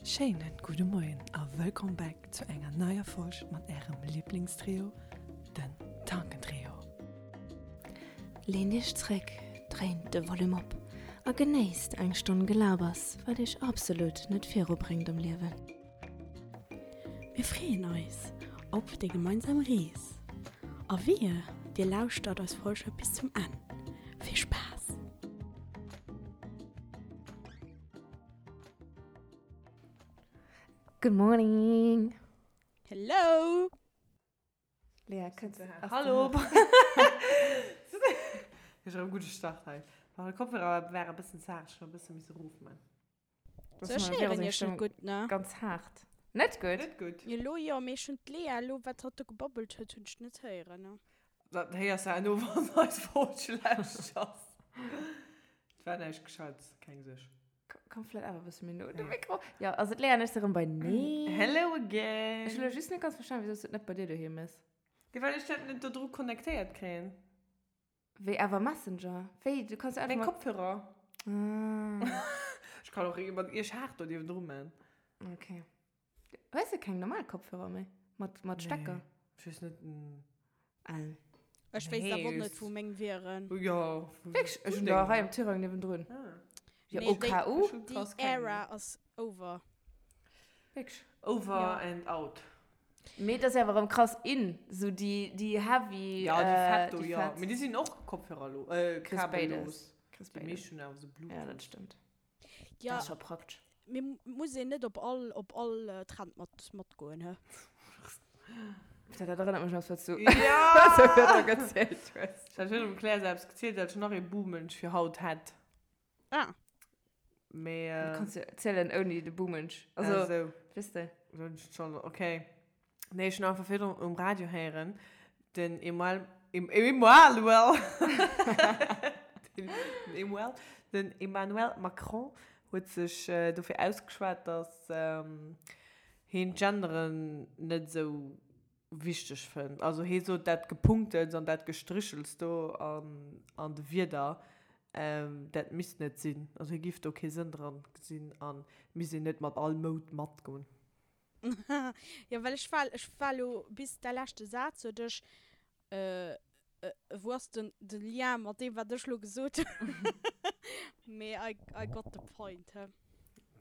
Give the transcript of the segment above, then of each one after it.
Schéinen gudde Moien a wëllkomm back zu enger neier Folg mat ärem Liblingstrio, den Tankentrio. Leent iech zréck, dréint de Volume op a genéisst eng Stonn Gelabers, wat iech absolut net virubréngt am Liewen. Mir freeën eis op déi gemeinsam Rees a wehe dir lauschtert eis Folge bis zum Enn. Vill Spaass! Good morning! Hello! Lea, kënns du Hallo! Ech hu e gudde Start hei. Ma de Kopfhörer war e bëssen zaart, ech hunn e bësse misse rofman. So, ech héieren iech net gutt, ne? Ganz haart. Net gutt? Net gutt. Elo jo, mee ech hunn d'Lea elo, wat hatt do gebabbelt huet, hunn ech net héieren, ne? Dat héiers de herno, wann eis Folg schlecht ass. Et war näischt Gescheites, keng Suerg. Komm vläit awer e bësse méi no un de Mikro. Jo, also d'Lea an ech si rëm beineen. Hello again! Ech hu lo just net ganz verstanen, wisou s du et net bei dir doheem méchs. Jo, well ech dat net do dru connectéiert kréien. Wéi awer Messenger? Wéi? Du kanns jo einfach Meng mat. Kopfhörer. Ah. Ech kann och mat iech haart do niewendru man. Okay. Hues de keng normal Kopfhörer méi? Mat, mat Stecker? Nee, ech weess net. Al. Ech wéisst awer och net, wou meng wieren. Jo. Wierklech? Ech hunn der hei am Tirang niewendrun. Ah. Jo, Nee, déi, OKU. déi Era ass over. Wierklech? Over Ja. and out. Mee dat ass awer erëm krass in, sou déi, déi heavy, Ja, déi fett do, déi jo. fett. Mee déi sinn och Kopfhörer lo, äh, Kriss béides. kabellos. Kriss Déi béides. meescht hunn awer sou Ja, dat Bluetooth. stëmmt. Ja. Dat ass scho praktesch. Mee muss een net op all, op all Trend mat, matgoen, he? Dat erënnert mech un eppes, wat s du Ja! wat du virdru gezielt hues. Ech hat virdru dem Claire se eppes gezielt, dat ech nach ee Buhmensch fir haut hätt. Ah. Mee. Du kanns jo zielen ouni de Buhmensch. Also, Ah, sou. weess de. Hunn ech schon, okay. Nee, ech hunn einfach virdrun um Radio héieren, den Emuel, Emanuel, den Emuel, den Emmanuel Macron huet sech dofir ausgeschwat, datt hien d'Genderen net esou wichteg fënnt. Also hie sot, dat Gepunktels an dat Gestrichels do an de Wierder, dat misst net sinn. Also hie giff do kee Sënn dran gesinn a misst een net mat all Moud matgoen. Jo, well ech war, ech war elo bis däi leschte Saz sot ech, wou ass den de Lien mat deem wat ech elo gesot hunn? Mee I, I got the point, he.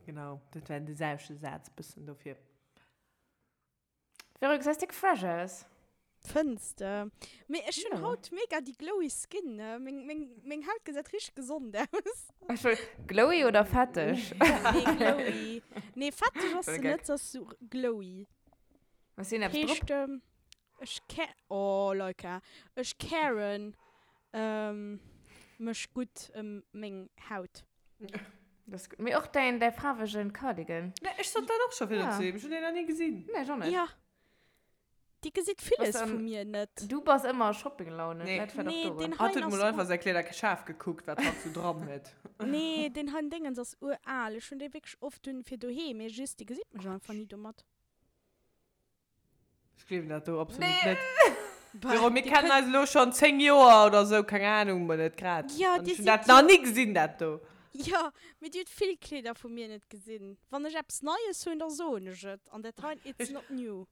Genau, dat war de selwechte Saz bëssen dofir. Vero, du gesäis déck fresh aus. Fënns de? Mee ech hunn Jo. haut mega déi glowy skin, ne? Meng, meng, meng Haut gesäit richteg gesond aus. Ech wëll, glowy oder fetteg? Nee, glowy. Nee, fetteg ass Voll se geck. net, se ass sou glowy. Hues du eppes drop? Heescht, ech ca, oh Leika, ech caren mech gutt ëm meng Haut. Dat ass gutt. Mee och däin, däi faarwegen Cardigan. Nee, ech sot dat och scho virun Ja. zu him, ech hunn deen nach ni gesinn. Nee, ech och net. Ja. Dir gesitt villes Bass vu an, mir net. Du bass ëmmer a Shoppinglaune, Nee. vläit war dat Nee, och deen doran. Hatt hein huet ass mol ur. einfach säi Kleeder schaarf gekuckt, wat hatt sou dran huet. Nee, deen hein Déngens ass ural. Ech hunn dee wierklech oft un fir doheem, mee just dir gesitt mech einfach ni domat. Ech gleewen dat do absolut Nee. net. Bah, Vero, mir dir kennen kënnt. eis elo schonn 10 Joer oder sou, keng Ahnung, mol net grad. Ja, An dir ech hunn sidd dat nach jo. ni gesinn, dat do. Jo, mee dir hutt vill Kleeder vu mir net gesinn. Wann ech eppes Neies hunn, da soen ech et. An dat hein, it's Ech. not new.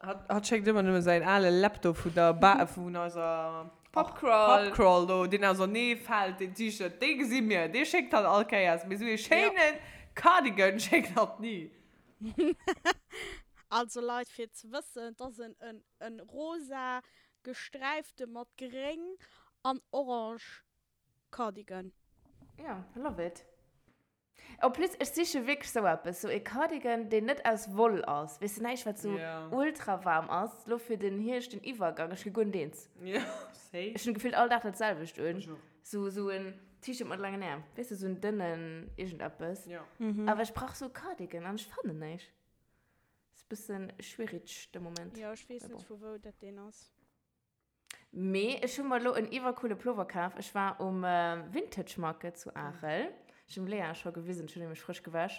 Hatt schéckt ëmmer nëmme säin ale Laptop vun der Ba vun eiser Pubcrawl. Pubcrawl do, deen ausernee fält, deen T-Shirt, dee gesi mir, dee schéckt hatt all Kéiers, mee esou ee schéine Cardigan schéckt hatt ni. Also Leit, fir ze wëssen, et ass en en rosa gesträifte mat gréng an orange Cardigan. Ja, I love it. En plus, ech siche wierklech sou eppes, sou e Cardigan, deen net aus Woll ass, weess de, näischt wat sou ultra waarm ass, lo fir den Hierscht, den Iwwergang, ech gi guer net eens. Ech hunn gefillt all Dag dat selwecht un, sou sou en T-Shirt mat laangen Äerm, weess de, sou en dënnen iergendeppes, awer ech brauch sou e Cardigan an ech fannen näischt. Ass bëssen schwierig de Moment, Jo, ech weess mee net bon. vu wou dat deen ass. Mee ech hu mer elo en iwwercoole Plover kaf. Ech war um Vintage Market zu Arel. Ech hunn dem Léa scho gewisen, ech hunn nämlech frësch gewäsch.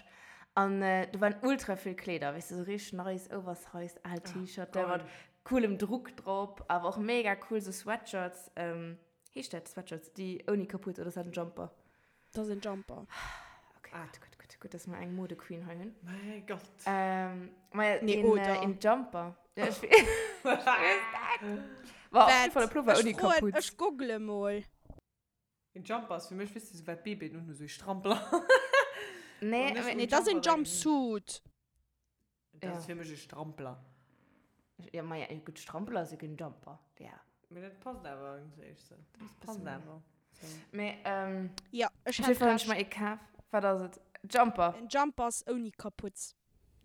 An do waren ultra vill Kleeder, weess de, sou richteg nice, oversized, al T-Shirte mat coolem Druck drop, awer och mega cool sou Sweatshirts, heescht dat Sweatshirts, déi ouni Kaputt, oder ass dat en Jumper? Dat ass en Jumper. Ok. Ah. Gutt, gutt, gutt, gutt, dass mer eng Mode-Queen hei hunn. Mäi Gott. Ähm, ma Nee, een, oder? äh, een Jumper. Ja, ech weess ech weess dat. War op jeden Fall e Pullover Ech ouni froen, Kaputz. ech google mol. Een Jumper ass fir mech, weess de, sou wat Babyen unhu, sou ee Strampler. Nee, Wann ech mee un Nee, dat ass een Jumper denken. Jumpsuit. Dat Ja. ass fir mech e Strampler. Ja, ma ja, gutt, Strampler ass jo keen Jumper. Ja. Mee dat passt awer iergendwéi sou. Dat ass Passt bëssen. awer. Sou. Mee, ähm, Ja, ech op hat jeden Fall hunn ech recht. mer ee kaf. Wat ass et? Jumper. En Jumper ass ouni Kaputz.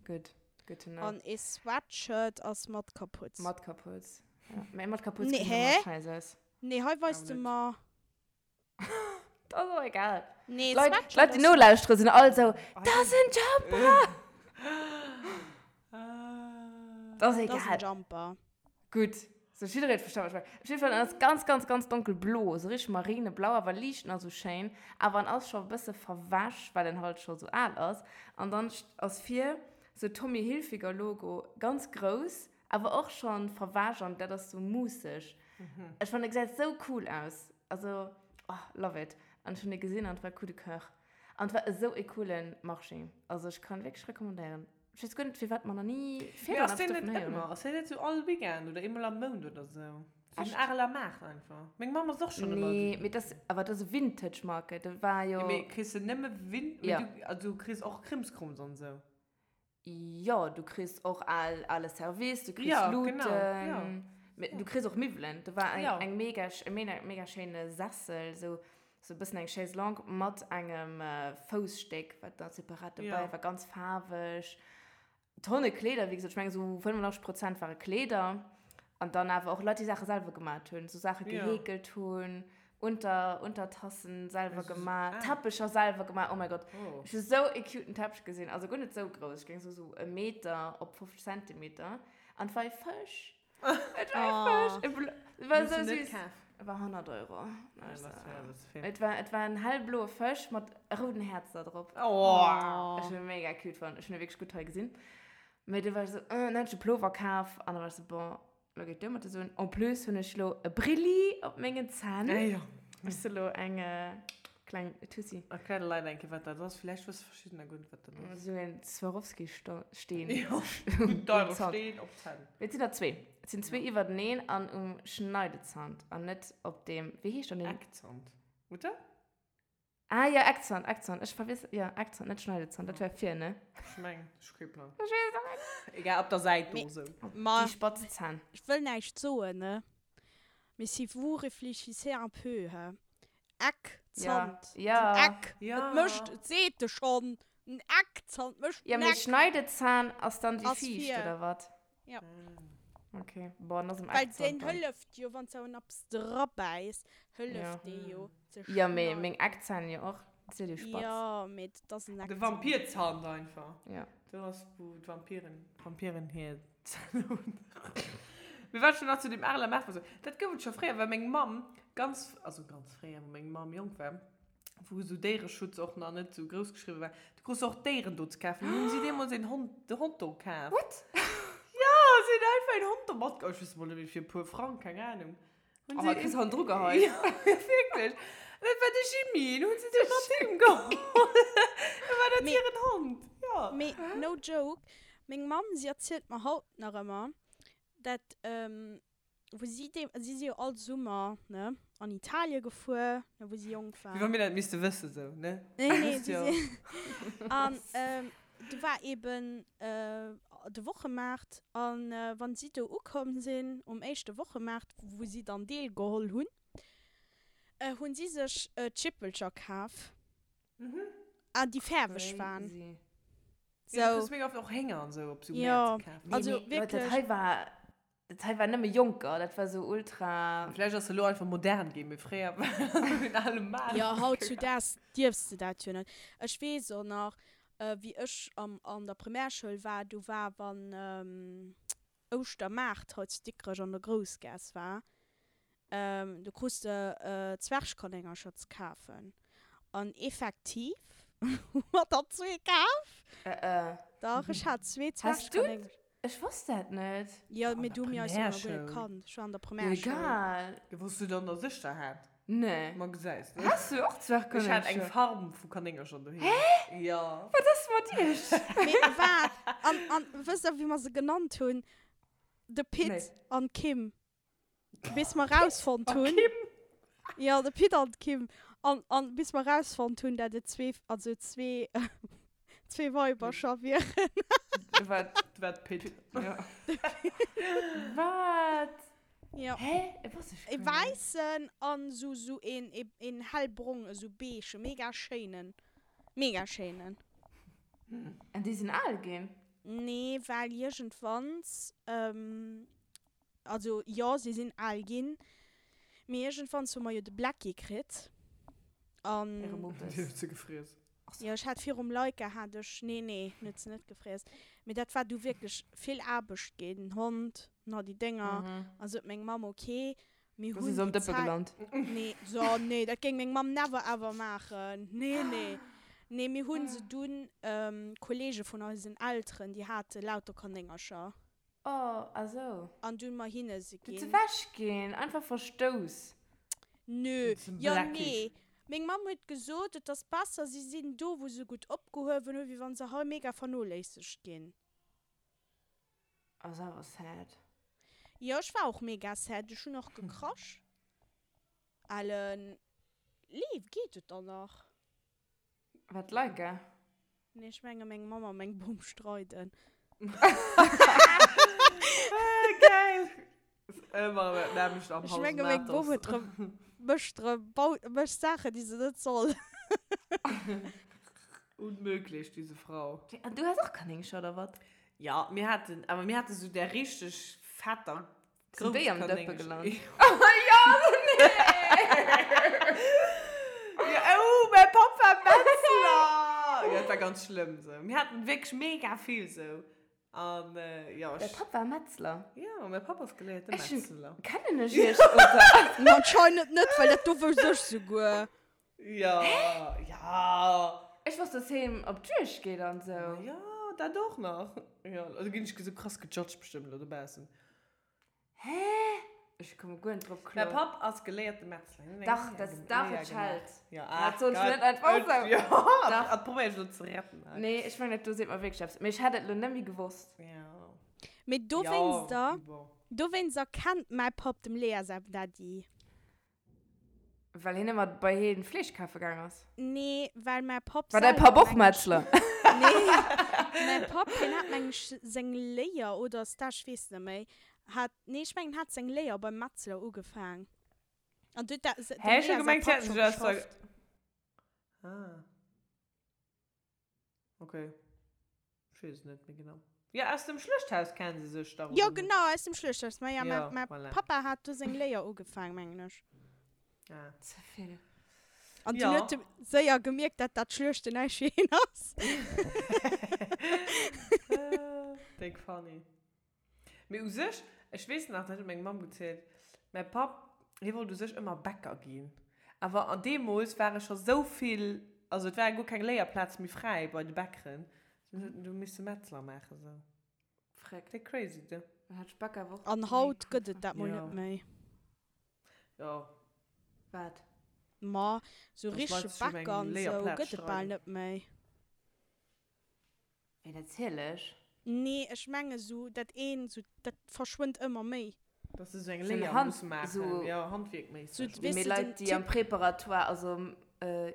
Gutt, good to know. An ee Sweatshirt ass mat Kaputz. Mat Kaputz. Ja. Mee mat Kaputz Nee, gesäit hä? ëmmer scheiss aus. Nee, hei weist Awer de net. mer. Dat ass och egal. Nee, Leit, Sweatshirt Leit, déi ass. nolauschteren, sinn all sou, Dat ass en Jumper! Dat ass Dat ass en egal. Jumper. Gutt. Sou, jidderee huet verstanen, wat ech mengen. Op jidde Fall, en ass ganz, ganz, ganz donkelblo, sou richteg marineblau, awer liicht nach sou schéin. Awer en ass scho e bësse verwäsch, well en halt scho sou al ass. An dann ass vir sou Tommy Hilfiger Logo, ganz grouss, Awer och schon verwäsch an dat ass sou muusseg. Ech fannen e gesäit sou cool aus. Also oh love it. An ech hunn e gesinn an et war coup de coeur. An et war esou e coolen Marché. Also ech kann wierklech recommandéieren. Ech weess guer net firwat mer nach ni Mee virdrun ass eppes deen net dovun héieren ëmmer? hunn. Ass deen net sou all Weekend oder eemol am Mount oder sou? Sou den Echt? Areler Maart einfach. Meng Mamm ass och schonn ëmmer Nee, do. mee dat ass awer dat ass e Vintage Market. Dat war jo. Jo mee kriss de nëmme Vin, mee Ja. du, also du kriss och Krimskrums an sou. Jo, du kriss och al, ale Service, du kriss Ja, Luuten, genau, ja. mee du kriss och Miwwelen. Do war eng, Ja. eng mega, e mega, mega schéine Sessel, sou, sou e bëssen eng Chaise longue mat engem Foussstéck, wat da separat dobäi Ja. war, ganz faarweg. Tonne Kleeder, wéi gesot, ech mengen sou 85 Prozent ware Kleeder. An dann awer och Leit, déi Saache selwer gemat hunn, sou Saache Ja. geheekelt hunn, Unter, Untertassen selwer Also, gemaach, ah. Teppecher selwer gemaach, oh mein Gott. Oh. Ech hu sou e cuten Teppech gesinn, also guer net sou grouss, ech géing soen sou e Meter op 50 Zentimeter. An et war e Fësch. Et war e Fësch. E blo, et war Hues sou du net süß. kaf? Et war 100 Euro. Ja, Also, das wär das vill. et war, et war en hellbloe Fësch mat rouden Häerzer drop. Oh. Ech hunn e mega cute fonnt, ech hunn e wierklech gutt hei gesinn. Mee du war ech sou, äh, dann hunn ech de Plover kaf an da war ech sou, bon, Lo geet duer mat de Suen. En plus hunn ech lo e Brilli op mengen Zänn. Ah jo. Ech si lo eng kleng Tussi. Erklär de Leit eng Kéier, wat dat ass. Villäicht wësse verschiddener guer net, wat dat ass. Esou en Swarovski-Steen. Jo, en deiere Steen op d'Zänn. Mee et sinn der zwee. Et sinn zwee iwwerteneen an um Schneidezant an net op deem, wéi heescht dann deen? Eckzant, oder? Ah ja, Eckzahn, Eckzahn. Ech verwiss, ja, Eckzahn, net Schneidezahn. Dat wär vir, ne? Ech meng, ech hu kee Plang. Ech weess och net. Egal, op der Säit do sou. Ma Déi spatz Zänn. ech wëll näischt soen, ne? Mais si vous réfléchissez un peu, he? Eckzant, Ja, den ja. Eck, Ja. et mécht, et seet e schonn, den Eckzant mécht Ja, den mee Eck. Schneidezahn ass dann déi Ass viischt, vir. oder wat? Ja. Okay, bon, dann ass em Well Eckzant deen dann. hëlleft jo, wann s de en eppes drabäiss, hëlleft Ja. dee jo ze Ja, mee schneiden. meng Eckzänn jo och. Dat si jo déi spatz. Ja, mee dat ass en De Eckzant. Vampirzant einfach. Ja. Do ass, wou d'Vampiren, d'Vampiren hir Zänn hunn. Mee wat ech nach zu deem Areler Maart wollt soen, dat gouf et scho fréier, well meng Mamm ganz, also ganz fréier, wou meng Mamm jonk war, wou esou Déiereschutz och nach net esou grouss geschriwwe war, du krus och Déieren do ze kafen. Hunn si deemools een Hond, de Hond do kaf. What? Ja, si hunn einfach een Hond do matgeholl. Ech weess mol net méi, fir e puer Frang, keng Ahnung. Hunn Oh, si kriss han dru geheit. Ja, wierklech. Dat war de Jimmy, den hunn si du mat heem geholl. Da war dat Mee- hiren Hond, ja. Mee no joke, meng Mamm, si erzielt mer haut nach ëmmer, dat, wou si deem, si si jo all Summer, ne, an Italie gefuer, ne, wou si jonk Wéi wa war. mir dat misste wëssen, sou, ne? Nee, nee, Wësst si jo. si, an do war eben de Wochemaart, an wann si do ukomm sinn, um éischte Wochemaart, wou si dann deelgeholl hunn, hunn si sech Chippelcher kaf, an déi fäerweg waren. Crazy. Ja, du Sou. kriss mega oft och Hénger an sou op sou Jo, Mäert ze kafen. also Nee, mee Leit, dat wierklech. hei war, Dat hei war nëmme Jonker, dat war sou ultra. Vläicht ass se elo einfach modern ginn, mee fréier war dat sou en ale Maart. Jo, hautzudaags dierfs de dat jo net. Ech weess och nach, wéi ech am an der Primärschoul war, do war wann Ouschtermaart hei zu Dikrech an der Groussgaass war, do krus de Zwergkanéngercher ze kafen. An effektiv hu mer der zwee kaf. Dach, ech hat zwee Has du Zwergkanéngercher. Ech wosst dat net. Jo, An mee der du hu mir eis jo nach guer net Primärschoul. kannt. Ech war an der Primärschoul. Egal. Jo, wou s du dann der Sëschter hat. Nee. Ma gesäis de. Has du och Zwergkanéngercher? Ech hat eng Farm vu Kanéngercher doheem. Hä? Jo. Wat ass mat iech? Mee waart, an, an wësst der, wéi mer se genannt hunn? De Pit Nee. an d'Kim. Bis mer rausfonnt A hunn. Kim? Jo, de Pit an d'Kim. An, an bis mer rausfonnt hunn, dat et zwee, also zwee, zwee Weibercher wieren. Wat? Wat Pit? Ja. Wat? Ja. Hä? E wosst ech E guer net. wäissen an sou sou een een hellbrong, esou beige, mega schéinen. Mega schéinen. An déi sinn al ginn? Nee, well iergendwanns, also jo, si sinn al ginn, mee iergendwanns hu mer jo de Blacky kritt an. Äre Muppes. Déi huet se gefriess. Jo, ech hat virum Laika hat ech, nee, nee, en huet se net gefriess, mee dat war du wierklech vill Aarbecht ginn, den Hond, na déi Dénger, an sot meng Mamm, ok, mir Do si hunn se am déi Dëppe Zäit, gelant. nee, so, nee, dat géing meng Mamm never ever maachen, nee, nee, nee, mir hunn se dunn, Kollege vun eisen Elteren, déi hate lauter Kanéngercher. Oh, ah sou. An dunn mer hinne se Du ze ginn. wech ginn, einfach verstouss. Nö, Zum jo Blacky. nee. Meng Mamm huet gesot, et ass besser si sinn do wou se gutt opgehuewen hunn, wéi wann se hei mega vernoléissegt ginn. Ass awer sad. Jo, ech war och mega sad, ech hunn och gekrasch. Ellen, Lee, geet et dann nach? Wat Leica? Nee, ech menge meng Mamm a meng Bom streiden. Geil! Ëmmer dat nämmlecht am Ech Haus menge meng Bom huet rëm, mécht rëm, baut, mécht Saachen, déi se net soll. Unmöglich, diese Frau. An du has och Kanéngcher, oder wat? Ja, mir haten, awer mir hate sou där richteg fetter Sinn déi am Dëppe gelant? Jo, nee! Ja, oh, mäi Papp war Metzler! Ja, dat war ganz schlëmm sou. Mir haten wierklech mega vill sou. An jo, Däi ech. Papp war Metzler? Jo, mäi Papp ass geléierte Ech hunn. Metzler. Kennen ech iech, oder? Ma anscheinend net, well dat do wousst ech souguer. Jo, ja. Ech wosst, dass hien op d'Juegd geet an sou. Jo, dat och nach. Jo, do ginn ech sou krass gejudged bestëmmt elo dobaussen. Hä? Ech komme guer net drop Mäi kloer. Papp ass geléierte Metzler. Hien huet eng Dach, Léier dat, gem- dach, Léier et gemaach. schellt. Ja, Dat ach soll ech Gott. net einfach Et, sou. ja, Dach. dat probéier ech elo ze retten hei. Nee, ech mengen, dat do seet mer wierklech eppes. Mee ech hätt et elo net méi gewosst. Ja. Mee Ja, dowéinster, bon. dowéinster kennt mäi Papp dem Lea säi Daddy. Well hien ëmmer bei hien Fleesch kafe gaang ass. Nee, well mäi Papp War däi selwer, Papp och meng ech. Metzler? Nee, mäi Papp, hien hat, meng ech, seng Léier oder Stage, ech weess net méi, hat, nee, ech mengen, hat seng Léier beim Metzler ugefaang. An du huet dat, dem Hä, ech hu Lea säi gemengt, si Papp hätten scho sech aus der. geschafft. Ah. Okay. Ech weess et net méi genau. Jo, aus dem Schluechthaus kennen se sech dach, Jo, oder net? genau, aus dem Schluechthaus. Ma ja, Jo, mä, mä voilà. Papa hat do seng Léier ugefaang, mengen ech. Ah. Ze vill. An dunn Jo. huet e séier gemierkt, dat dat Schluechten näischt fir hien ass. Déck funny. Mee u sech, ech weess nach, dat huet meng Mamm gezielt, mäi Papp, hie wollt u sech ëmmer Bäcker ginn. Awer an deemools ware scho sou vill, also et ware guer keng Léierplaze méi fräi bei de Bäckeren, dunn huet en du misse Metzler maachen sou. Fréck. Déck crazy, de. Dann hat ech Bäcker awer och An méi haut cool gëtt et fonnt. dat mol Jo. net méi. Jo. Wat? Ma sou Dass Leit richtege sech ëm eng Bäcker an sou Léierplaz gëtt et bal streiden. net méi. Wéi natierlech. Nee, ech menge sou dat een, sou dat verschwënnt ëmmer méi. Dass se sou eng Sou Léier Hand, musse maachen, sou jo, handwierkméisseg. Sou, Mee weess de, Leit, den déi am Typ. Préparatoire, also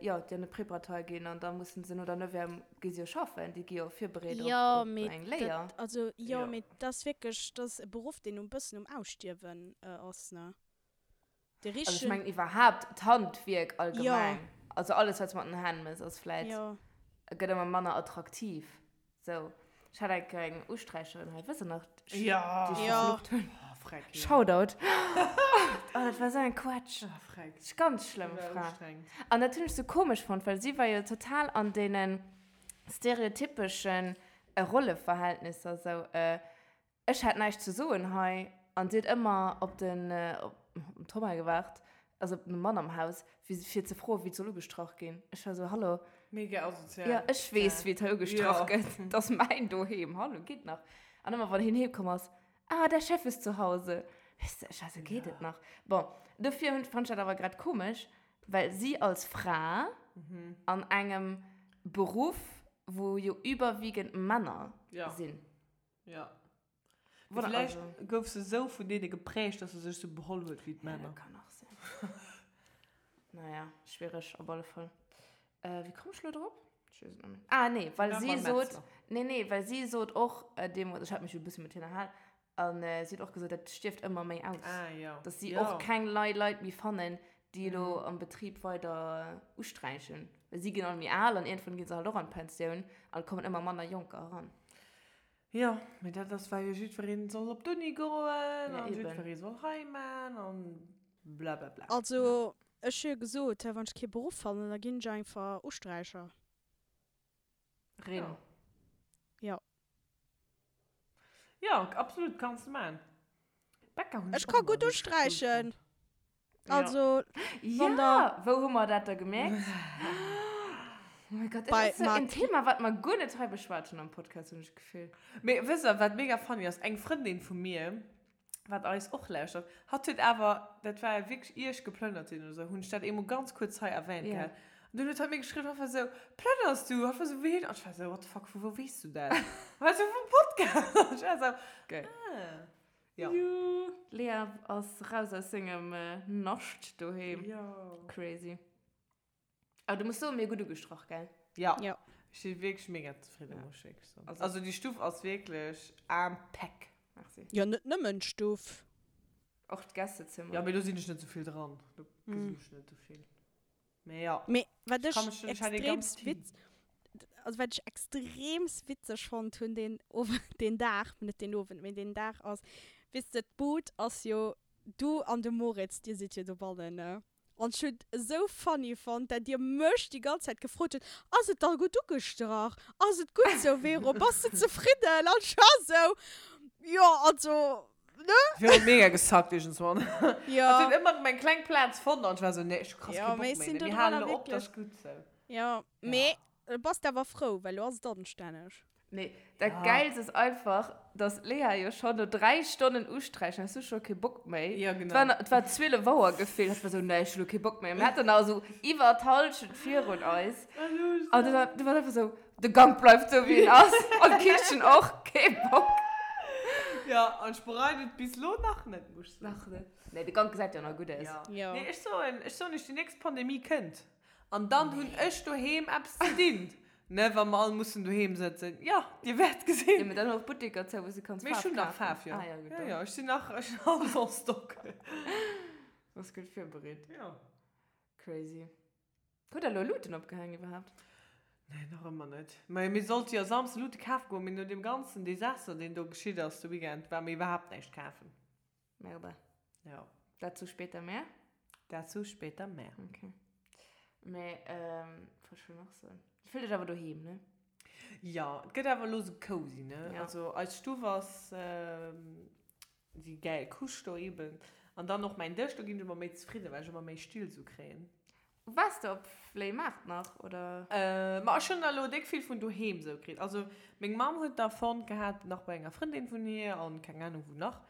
jo, déi an de Préparatoire ginn an da mussen se no der Neuvième gi se jo schaffen, déi gi jo virbereet op, Jo, op mee eng Léier. dat, also jo, Jo. mee dat ass wierklech, dat ass e Beruff, deen um bëssen um Ausstierwen ass, ne? De Also ech richtegen. mengen iwwerhaapt d'Handwierk Jo. allgemeng, also alles wat s de mat den Hänn mëss ass vläit, Jo. gëtt ëmmer manner attraktiv. Sou, ech hat eng Kéier eng Usträicherin hei, wësst der nach, déi Jo. ech Jo. verflucht hunn. Oh, freck, jo. Shoutout. Oh, dat war sou eng Quatsch. Ah, freck. Ganz schlëmm Déi war Fra. ustrengend. An dat hunn ech sou komesch fonnt, well si war jo total an deene stereotypeschen Rolleverhältnisser sou, Ech hat näischt ze soen hei an si huet ëmmer op den Thomas gewaart, also op den Mann am Haus, fir ze froen, wéi et soll ugestrach ginn. Ech war esou, Hallo? Mega asozial. Jo, ech weess, wéi et hei ugestrach gëtt. Et ass mäin Doheem. Hallo, geet nach. An ëmmer, wann hien heemkomm ass, Ah, der Chef ist zu Hause. Weess de, ech war sou, geet et nach? Bon, dofir hunn, fand ech dat awer grad komesch, well si als Fra an engem Beruff, wou jo überwiegend Männer sinn. Ja. Mee villäicht gouf se esou vun deene geprägt, dass se sech sou beholl huet wéi d'Männer. Ja, dat kann och sinn. Naja, schwiereg op alle Fall. Wéi komm ech lo drop? Ech weess et net méi. Ah, nee, well si sot, nee, nee, well si sot och deemools, ech hat mech jo e bësse mat hir ënnerhal, an si huet och gesot, dat stierft ëmmer méi aus. Ah, jo. Dass si och keng nei Leit méi fannen, déi elo am Betrib weider usträichen. Well si ginn all méi al an iergendwann gi se halt och an d'Pensioun an et kommen ëmmer manner Jonker eran. Jo, mee dat ass well jo jiddwereen soll op d'Uni goen an jiddweree soll hei man an blablabla. Also ech hu jo gesot, wann ech kee Beruff fannen, da ginn ech einfach Usträicher. Rin. Jo. Jo, absolut, kanns de man. Bäcker hunn ech ka gutt usträichen. Also, wann der. Wou hu mer dat da gemierkt? Oh mein Gott, dat ass sou en Thema, wat mer guer net hei beschwat hunn am Podcast, hunn ech d'Gefill. Mee wësst der, wat mega funny ass? Eng Frëndin vu mir, wat eis och lauschtert, hatt huet awer, dat war wierklech ier ech geplënnert sinn oder sou, hunn ech dat eemol ganz kuerz hei erwähnt gehat. An dunn huet hatt mir geschriwwen, hatt war sou, Plënners du? Hatt war sou, wéi? An ech war sou, what the fuck, vu wou weess du dat? War sou, vum Podcast. An ech war sou, ah. Ja. Juhu. Lea ass raus aus sengem Nascht doheem. Jo. Crazy. Awer du muss soen, mir hu gutt ugestrach, gell? Ja. Ja. Ech si wierklech mega zefridden, muss ech wierklech soen. Also déi Stuff ass wierklech impeck. Merci. Jo, net nëmmen d'Stuff. Och d'Gästezimmer. Ja, mee do sinn ech net esou vill dran. Do gesinn ech net esou vill. Mee ja. Mee wat ech extreemst witz, also wat ech extreemst witzeg fonnt hunn deen Owend, deen Dag, net deen Owend, mee deen Dag ass, weess de, d'Bud ass jo, du an de Moritz, dir sidd jo dobannen, ne? An ech hunn et esou funny fonnt, dat dir mech déi ganz Zäit gefrot hutt, Ass et da gutt ugestrach? Ass et gutt sou, Vero? Bass de zefridden? An ech war esou, Jo, also, Ne? Ech hunn mega gesackt iergendswann. Ja. Hat huet ëmmer meng kleng Plaz fonnt an ech war sou, nee, ech hu krass Ja, kee Bock mee méi, sinn ne, do mir dran halen elo op, dat wierklech. ass gutt sou. Ja, mee bass de awer frou, well lo ass et anstänneg. Nee, dat Ja. Gäilst ass einfach, dass d'Lea jo schonn no 3 Stonnen usträichen, has du scho kee Bock méi. Ja, Et genau. war, et war 12 Auer gefillt, hat war sou, nee, ech hu lo kee Bock méi. Mir haten nach esou iwwer d'Hallschent virun eis. An du war, du warst einfach sou, De Gank bleift sou wéi en ass an d'Kichen och, kee Bock. Ja, an ech bereien et bis lo nach net, muss ech soen. Nach net. Nee, de Gank gesäit jo nach gutt aus. Ja. Jo. Nee, ech soen, ech soen iech, déi nächst Pandemie kënnt an dann hunn ech doheem eppes ze dinn, ne, wa mer all mussen doheem sëtzen. Jo, dir wäert gesinn. Jo, mee dann och Butteker zou, wou s du kanns Mee ech Faarf hunn nach kafen. Faarf, jo. Ah ja, gutt, Jo, dann. jo, ech sinn nach, ech hunn alles en stock. Bass gutt virbereet. Jo. Crazy. Hutt der elo Luuten opgehaang iwwerhaapt? Nee, nach ëmmer net. Mä mir sollte jo Samsde Luute kafe goen, mee no deem ganzen Desaster, deen do geschitt ass de Weekend, ware mir iwwerhaapt näischt kafen. Merde. Jo. Dazu später mehr? Dazu später mehr. Okay. Mä, ähm, wat wollt ech elo nach soen? Dir fillt iech awer doheem, ne? Jo, et gëtt awer elo sou cozy, ne? Ja. Also eis Stuff ass déi gäil Couche do eben. An dann och mäin Dësch, do ginn ech ëmmer méi zefridden, well ech ëmmer méi Still sou kréien. Waars de op Fléimaart nach, oder? Ma ech hunn der elo déck vill vun doheem sou kritt. Also meng Mamm huet der fonnt gehat, nach bei enger Frëndin vun hir an keng Ahnung wou nach.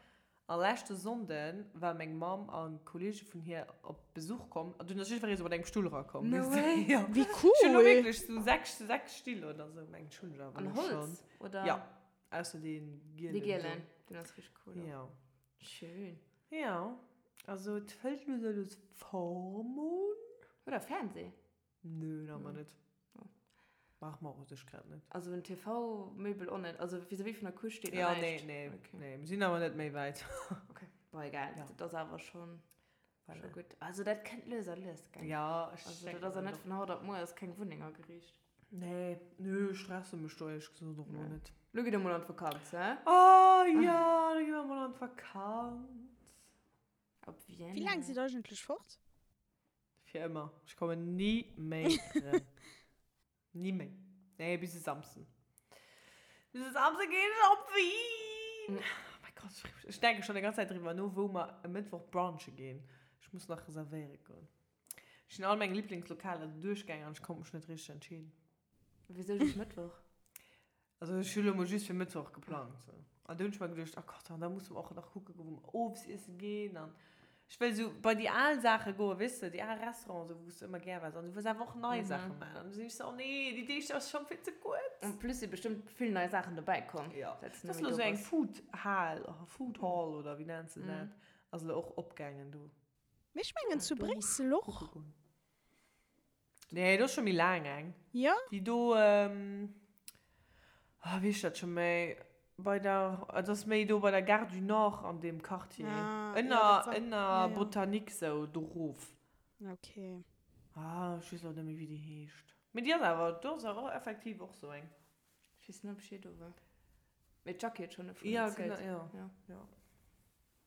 A leschte Sonnde war meng Mamm a Kollege vun hir op Besuch komm an dunn ass jiddweree sou mat engem Stull erakomm. No way! Jo. Wéi Ech hunn elo cool! wierklech sou 6, 6 Still oder sou, mengen ech hunn ech awer An elo schonn. Holz, oder? Jo. Ausser dee gielen. Dee gielen, deen ass richteg cool och. Jo. Schön. Jo, also et fëllt lues a lues Form un. Hutt der Fernseh? Nö, nach ëmmer net. Brauche mer och u sech grad net. Also en TV-Möbel och net? Also vis-à-vis vun der Couche steet nach Ja, nee, näischt? nee, Okay. nee, mir sinn awer net méi wäit. Okay. Bon, egal, Ja. dat ass awer schonn Voilà. scho gutt. Also dat kënnt lues a lues, gell? Ja, ech Also denken dat ass ja och. net vun haut op muer ass keng Wunneng ageriicht. Nee, nö, ech stresse mech do éierlech gesot och elo net. Lo gitt der mol an d'Vakanz, hä? Oh jo, lo gi mer mol an d'Vakanz. Op Vienna. Wéi laang sidd der eigentlech fort? Fir ëmmer. Ech kommen ni méi erëm. Ni méi. Nee, bis e Samsden. Bis e Samsden ginn ech op Wien! Oh mäi Gott, ech freeë mech. Ech denke schonn déi ganz Zäit driwwer no, wou mer e Mëttwoch brunche ginn. Ech muss nach reservéiere goen. Ech sinn all meng Liblingslokaler duerchgaangen an ech konnt mech net richteg entscheeden. Wisou just Mëttwoch? Also ech hu lo mol just fir Mëttwoch geplangt. Sou. An du hunn ech mer geduecht, oh Gott, an da musse mer och nach kucke goen, wou mer owes iesse ginn. An ech wëll sou bei déi al Saache goen, weess de, déi al Restauranten, sou, wou s de ëmmer gär waars. An du wëlls awer och nei Saache maachen. An du sinn ech sou, oh nee, déi Deeg ass schonn vill ze kuerz. En plus si bestëmmt vill nei Saachen dobäi komm, Ja. säit s du net méi do bass. Ass lo sou eng Food Hal, Food Hall oder wéi nenns de dat, ass lo och opgaangen do. Mee ech mengen zu Bréissel och. Nee, do ass scho méi laang eng. Jo? Déi do, ah, wéi heescht dat scho méi, bei der, et ass méi do bei der Gare du Nord an deem Quartier. Ah, jo, Ënner, dat war, ënner jo, jo. Botanique sou, do rof. Ok. Ah, ech weess elo net méi, wéi déi heescht. Mee déi ass awer, do ass awer effektiv och sou eng. Ech weess net, ob ech jee do war. Mee d'Jackie huet schonn dovun Ja, erzielt. genau, jo. Ja. Jo.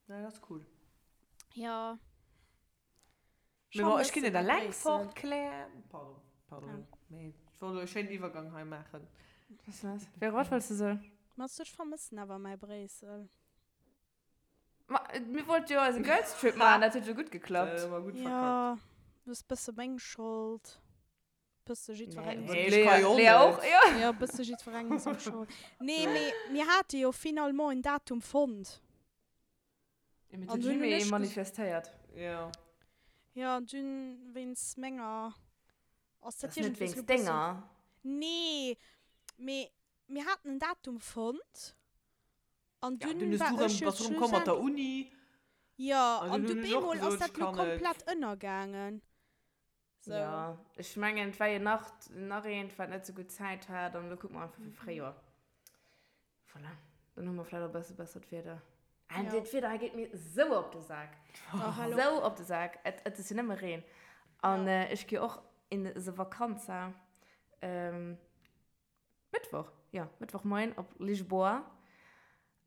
Nee, dat ass cool. Jo. Mee bon, ech ginn net eleng fort, Claire. Pardon, pardon. Mee ech wollt elo e schéinen Iwwergang hei maachen. Véro, wat wollts de soen? Ma ech vermëssen awer mäi Bréissel. Ma mir wollte jo eise Girls Trip maachen, dat huet jo gutt geklappt. Dat hu mer gutt verkackt. Jo, dat ass bësse meng Schold. Bësse jiddwerengem Nee, seng ech ka jo och Lea och, net. jo. Jo, bësse jiddwerengem seng Schold. Nee, mee mir hate jo finalement en Datum fonnt. Ja, mee An den dunn hunn Jimmy ech ges- manifestéiert. Jo. Jo, an dunn wéinst menger ass Dat dat ass net iergendwéi wéinst lo bëssen. denger. Nee, mee mir haten en Datum fonnt an Ja, dunn dunn hues war du rëm, ech jo bass du rëm komm mat der schlussendlech. Uni. Jo, An an dunn du hunn ech och bemol ass gesot, dat ech lo kann net. komplett ënnergaangen. So. Ja, ech mengen, et war jo nach, nach eent, wat net sou gutt Zäit hat an elo kucke mer einfach fir Fréijoer. Voilà, dann hu mer vläicht och e bësse bessert Wieder. An Ja. dat Wieder hei geet mir sou op de Sak. Oh, hallo. Sou op de Sak. Et, et ass jo nëmme Reen. An Ja. äh, ech gi och in the Vakanza. Ähm, Mëttwoch, jo, Mëttwochmoien op Lisboa.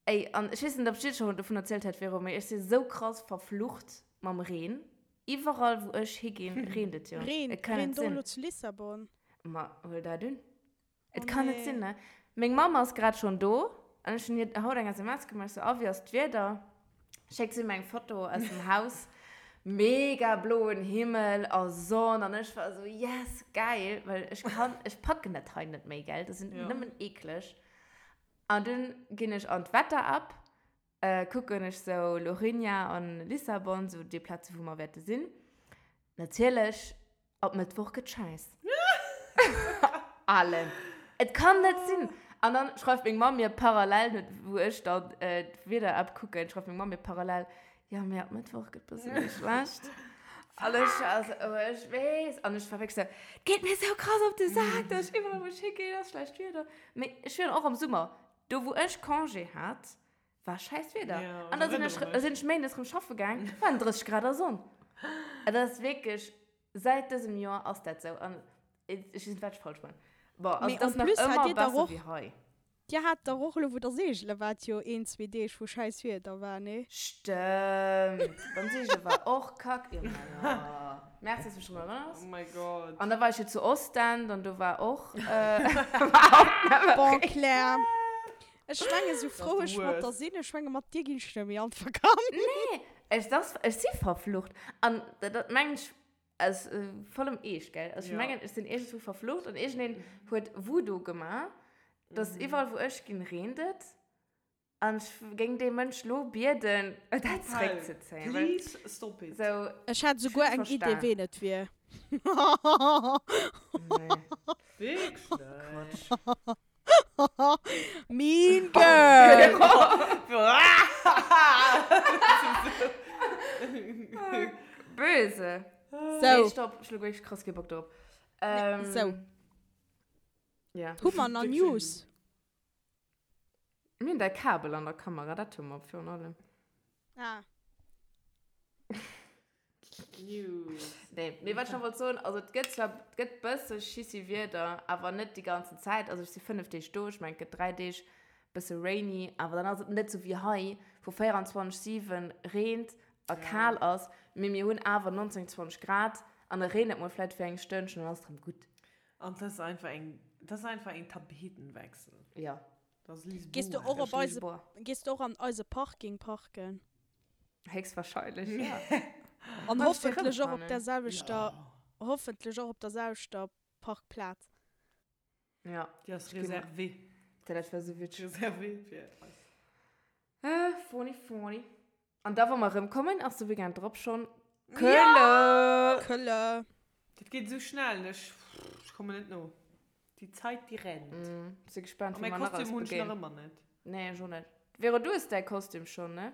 Ey, an ech weess net, ob ech dir schonn dovun erzielt hat, Véro, mee ech si sou krass verflucht mam Reen. Iwwerall, wou ech higinn, reent et jo. Reen, Et kann reent net och sinn. elo zu Lissabon? Ma huel dat un. Et Oh kann net nee. sinn, ne? Meng Mamm ass grad schonn do an ech hunn hir haut eng SMS gemaach, ech sou, A, wéi ass d'Wieder? Schéckt si mir eng Foto aus dem Haus, mega bloen Himmel a Sonn an ech war esou, yes, geil, well ech kann, ech packen dat hei net méi, gell, dat sinn nëmmen eekleg. An dunn ginn ech an d'Wetter-App, kucken ech sou Lourinhã an Lissabon, sou déi Plaze wou mer wäerte sinn. Natierlech Op Mëttwoch gëtt scheiss. Allen. Et kann net sinn. An dann schreift meng Mamm mir parallel, wou ech dann d'Wieder-App kucken, schreift meng Mamm mir parallel, jo, mee ab Mëttwoch gëtt bësse méi schlecht. An ech war esou, oh, ech weess. An ech war wierklech esou, et geet mir esou krass op de Sak, dass ech iwwerall wou ech higinn, ass schlecht Wieder. Mee ech wier och am Summer, do wou ech Congé hat, war scheiss Wieder. Ja, An da sinn ech, erinnere sinn ech méindes rëm schaffe gaang, waren 30 Grad a Sonn. Et ass wierklech, säit dësem Joer ass dat sou. An ech weess net, wat ech falsch man. Bon, also Mee et ass en nach plus hat ëmmer dir dach besser och, wéi hei. dir hat dach och elo, wou der seegele waart, jo een, zwee Deeg, wou scheiss Wieder war, nee? Stëmmt, beim Seegele war och kack. Jo, ma jo. Merci, dass du mech drun erënners. Oh my God. An da war ech jo zu Ostend an do war och, war och nëmme Bon, Reen. Claire, Ech menge sou frou ech mat der sinn, ech menge mat dir ginn ech net méi an d'Vakanz. Nee, ech, das, ech si verflucht. An dat mengen ech aus vollem Eescht, gell. Also ech mengen, ech sinn iergendwou verflucht an iergendeen huet Voodoo gemaach, dass iwwerall wou ech ginn, reent et. An ech géing dee Mënsch lo bieden, dat zeréckzezéien. Please stop it. Sou, Ech hat ech souguer hunn eng Idee verstan. ween et wier. Nee. Wierklech? Quatsch. Mean Girl! Böse. So. Nee, stopp, ech hu wierklech krass kee Bock drop. Nee, so. Ja. Hu mer nach News? Mir hunn däi Kabel an der Kamera, dat hu mer virun allem. Ah. News. Nee, mee wat ech nach wollt soen, also et gëtt zwar, et gëtt bësse schissi Wieder, awer net déi ganzen Zäit. Also ech si 5 Deeg do, ech mengen et gëtt 3 Deeg bësse rainy, awer dann ass et net sou wéi hei, wou 24, 7 reent a kal ass, mee mir hunn awer 19, 20 Grad an da reent et mol vläit fir eng Stënnchen an dann ass et rëm gutt. An dat ass einfach eng, dat ass einfach een Tapetenwechsel. Jo. Dat ass Lisboa. Gees du och op eise, Lisboa. gees du och an eise Parking parken? Héchstwahrscheinlech, ja. An Wann ech déi hoffentlech och op rëmfannen. der selwechter, hoffentlech och op der selwechter Parkplaz. Ja. Déi ass réservée. Dat war sou witzeg. Reservéiert fir eis. Ah, funny, funny. An da, wa mer erëmkommen, ass de Weekend drop schonn Kölle! Kölle! Dat geet esou schnell, ech kommen net no. Die Zeit, die rennt. Mm, si gespannt, A wéi mäi mer nach Kostüm alles hunn ech nach begéinen. ëmmer net. Nee, ech och net. Vero, du hues däi Kostüm schonn, ne?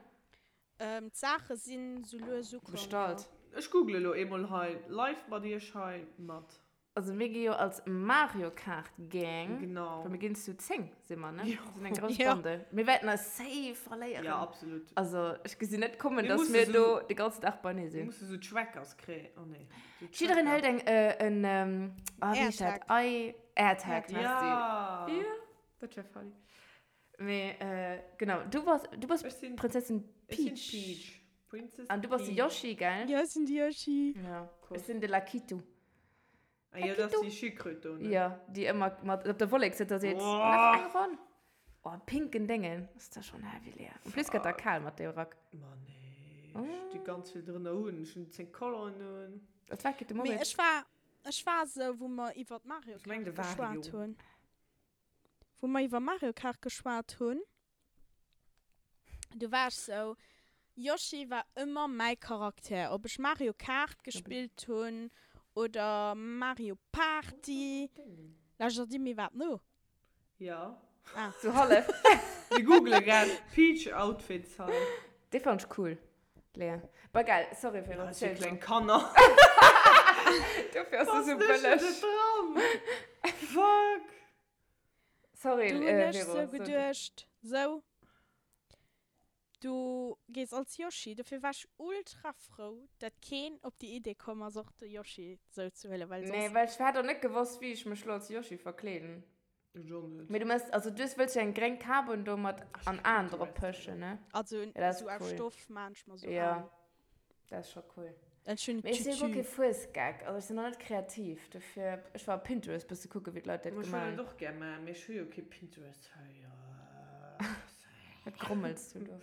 Ähm, d'Saache sinn sou lues ukomm, jo. Bestallt. Ech google elo eemol hei live mat iech hei mat. Also mir gi jo als Mario Kart Gang. Genau. Well mir ginn zu 10, si mer, ne? Jo. Mir sinn eng grouss Jo. Bande. Mir wäerten eis safe verléieren. Ja, absolut. Also ech gesinn net kommen, Mir dass musse mir sou- do de ganzen Dag beinee Mir sinn. musse sou Trackers kréien. Oh nee. Sou Jiddereen Tracker. hëlt eng, äh, en, ähm, ah, wéi heescht dat? Airtag. I, Airtag, merci. Ja. Ja, dat wär funny. Mee, äh, genau, du bass, du bass Ech sinn, Prinzessin ech sinn Peach. Peach. Princess An du bass de Peach. Yoshi, gell? Ja, ech sinn de Yoshi. Ja. Cool. Ech sinn de Lakitu. Ah ja, dat ass déi Schildkröt do, ne? Ja, déi ëmmer mat op der Wollek sëtzt a seet, Boah. Nach eng Ronn. Oh, pinken Déngen. Ass da schonn heavy, Lea. En plus gëtt der kal mat deem Rack. Ma nee, ech di ganz vill drënner un. Ech hunn 10 Colongen un. Dat war de Mee Moritz. ech war, ech war esou, wou mer iwwert Mario Ech meng Kart de Wario. geschwat hunn. Wou mer iwwer Mario Kart geschwat hunn, du war ech sou, Yoshi war ëmmer mäi Charakter, ob ech Mario Kart gespillt hunn oder Mario Party. Lauschtert dir mir iwwerhaapt no? Jo. Ah. Sou hallef. Mir googele grad Peach Outfits hei. Dee fand ech cool, Lea. Bah egal, sorry Vero, Ja, si erziel kleng du. Kanner. Dofir ass se Was sou lech bëlleg. net dran? Fuck. Sorry, Du hunn äh, ech Vero, sou so du. geduecht, sou, du gees als Yoshi. Dofir war ech ultra frou, dat keen op déi Idee komm ass, och de Yoshi sou ze huelen, well Nee, soss. well ech hätt och net gewosst, wéi ech mech lo als Yoshi verkleeden. Ech och net. Mee du mëss, also du wëlls jo eng gréng Kap un do mat Ech an hu Aen drop Pinterest. pëschen, ne? Also Ja, dat ass sou aus cool. Stoff maan ech mer sou Ja, Aen. dat ass scho cool. Ech hunn Mee ech sinn guer Tütü. kee Fuesgeck, also ech sinn och net kreativ, dofir, ech war op Pinterest bësse kucke wéi d'Leit dat Ma ech gemaach wëll hunn. dat och gär maachen, mee ech hu jo kee Pinterest hei. Wat grommels du do?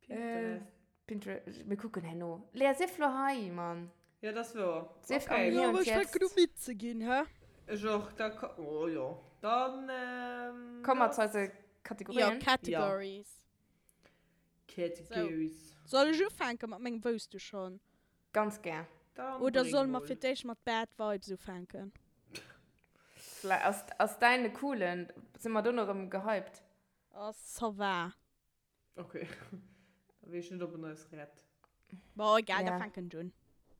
Pinterest. Pinterest, mir kucken herno. Lea, sief lo hei, Mann. Ja, dat ass wouer. Sief am Okay. Hier Jo, und ech fänken Jetzt. u midd ze ginn, hä? Ech och. Da ko, oh jo. Dann, ähm, Komme mer zu lass. eise Jo, Kategorien. Categories. Categories. Soll ech ufänke mat mengem Wousst du schon? Ganz gär. Dann Oder bréng solle mer mol. fir d'éischt mat Bad Vibes ufänken? Vläi ass, ass däin e coolen? Si mer dono erëm gehypt? Oh, ça va. Okay. Da weess ech net, ob en eis rett. Bon, egal, da Ja. fänken ech un.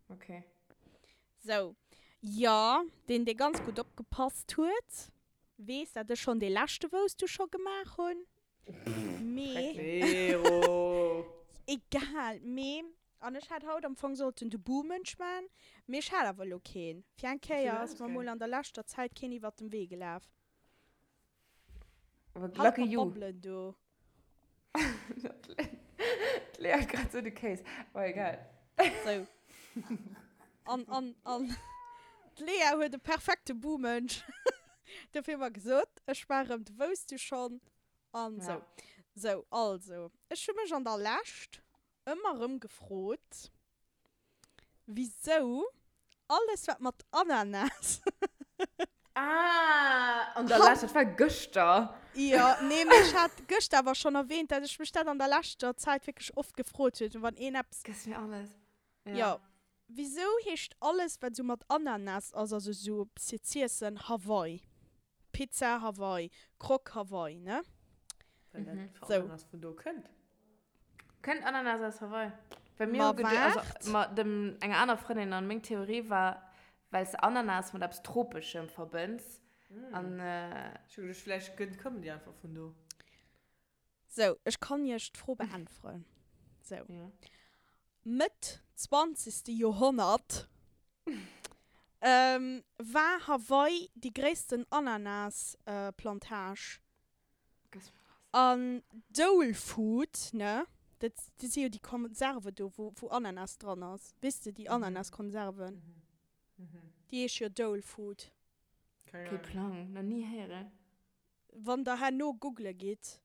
Okay. Sou, jo, deen, dee ganz gutt opgepasst huet, weess, dat ech schonn dee leschte Wousst du scho gemaach hunn. Mee. Vero! Egal, mee, an ech hat haut am Fong sollten de Buhmënsch man, mee ech hat awer elo keen. Fir eng Kéier ass mer mol an der leschter Zäit keen iwwert dem Wee gelaf. Halt Lucky mat you. Babbelen do. D'Lea huet grad sou de Kéis. Oh, egal. Sou. An, an, an d'Lea huet e perfekte Buhmënsch. Dofir hu mer gesot, ech war erëm de Wousst du schonn an sou. Ja. Sou, also, ech hu mech an der Lescht ëmmer erëm gefrot, wisou alles wat mat Ananas. Ah, an der Lescht, dat war gëschter. Jo, nee, mee ech hat gëschter awer schonn erwähnt, dat ech mech dat an der leschter Zäit wierklech oft gefrot huet, wann een eppes. Gëss mir alles. Jo, wisou heescht alles wat sou mat Ananas ass, also sou fir z'iessen, Hawaii? Pizza Hawaii, Croque Hawaii, ne? Well dat Sou. Ananas vun do kënnt. Kënnt Ananas aus Hawaii? Well mir Ma hu geduecht, also waart. mat dem enger aner Frëndin an meng Theorie war, well s de Ananas mat eppes Tropeschem verbënns an. Ech hu geduecht, vläicht gënnt kommen déi einfach vun do. Sou, ech kann iech d'Fro beäntweren. Sou. Ja. Mëtt zwanzegste Joerhonnert war Hawaii déi gréissten Ananas-Plantage. An Dole Food, ne, dat si jo déi Konserve do, wou Ananas dran ass. Weess de, déi Ananas-Konserven? Déi heesche jo Dole Food. Kee Plang, nach ni héieren. Wann der herno googele gitt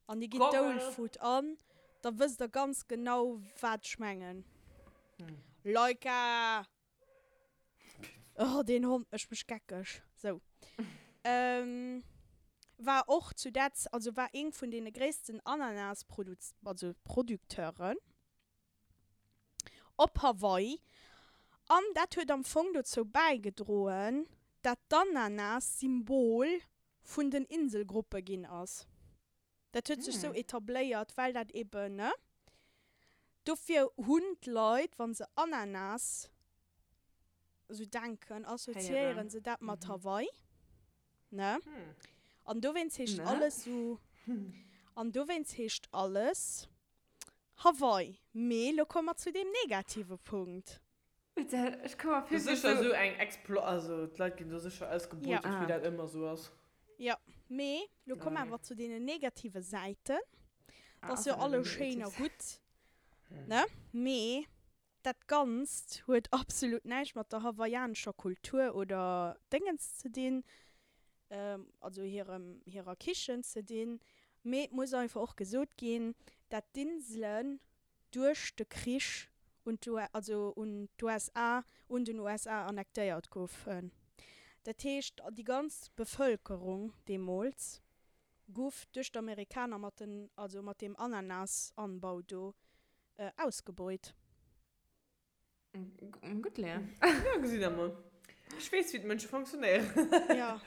an dir gitt Dole Food an, da wësst der ganz genau, wat ech mengen. Laika! Oh, deen Hond mécht mech geckeg. Sou. War och zu där Z also war eeng vun deene gréissten Ananas-Produz also Producteuren op Hawaii. An dat huet am Fong dozou bäigedroen, dat d'Ananas Symbol vun den Inselgruppe ginn ass. Dat huet sech sou etabléiert, well dat eben, ne? Dofir hunn d'Leit, wa se Ananas sou denken, assoziéiere se dat mat Hawaii, ne? An dowéinst heescht alles sou, an dowéinst heescht alles Hawaii. Mee lo komme mer zu deem negative Punkt. Ech komm mer vir wéi sou. Sécher sou eng Explo, also d'Leit ginn do sécher ausgebeutet, wéi dat ëmmer sou ass. Jo, mee lo komm awer zu deenen negative Säiten. Dat ass jo alles schéin a gutt, ne? Mee dat Ganzt huet absolut näischt mat der hawaiianescher Kultur oder Déngens ze dinn, also hirem, hirer Kichen ze dinn. Mee et muss einfach och gesot ginn, dat d'Inselen duerch de Krich un also un d'USA, un den USA annektéiert goufen. Dat heescht, déi ganz Bevëlkerung deemools guff duerch d'Amerikaner mat den, also mat deem Ananasanbau do ausgebeut. Gutt, Lea. Ja, gesitt der mol. Ech weess, wéi d'Mënsche fonctionnéieren. Ja.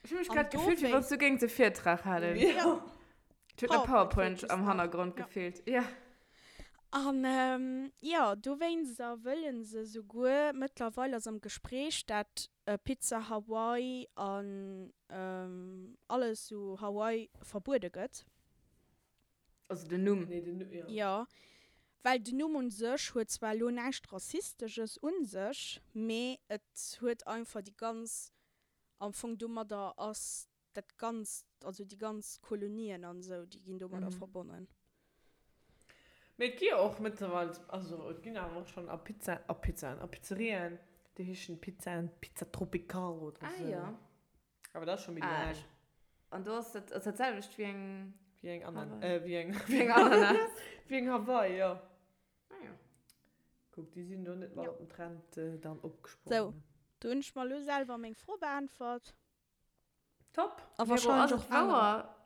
Ech hu mech grad gefillt, wéi wann s du géings e Virtrag halen. Ja. Et huet no PowerPoint am Hannergrond gefeelt. Ja. An jo, dowéinster wëlle se souguer, mëttlerweil ass am Gespréich, dat Pizza Hawaii an alles sou Hawaii verbuede gëtt. Also den Numm. Nee, den Numm, jo. Jo, well den Numm un sech huet zwar elo näischt Rassisteges un sech, mee et huet einfach déi ganz, am Fong domadder ass dat Ganzt, also déi ganz Kolonien an esou, déi ginn domadder verbonnen. Mee et gi jo och mëttlerweil, also et ginn awer och schonn a Pizza, a Pizzaen, a Pizzerien, déi heeschen Pizzaen, Pizza Tropical oder Ah esou. jo. Awer dat ass scho méi Ah, laang. ech, an do ass dat, ass dat selwecht wéi eng. Wéi eng Anan, Hawaii. äh, wéi eng, Wéi eng Ananas. wéi eng Hawaii, jo. Ah jo. Kuck, déi sinn do net mat Jo. op den Trend dann Sou, opgesprongen. do hunn ech mer elo selwer meng Fro beäntwert. Top! A Vero, wahrscheinlech ass och et anerer. wouer,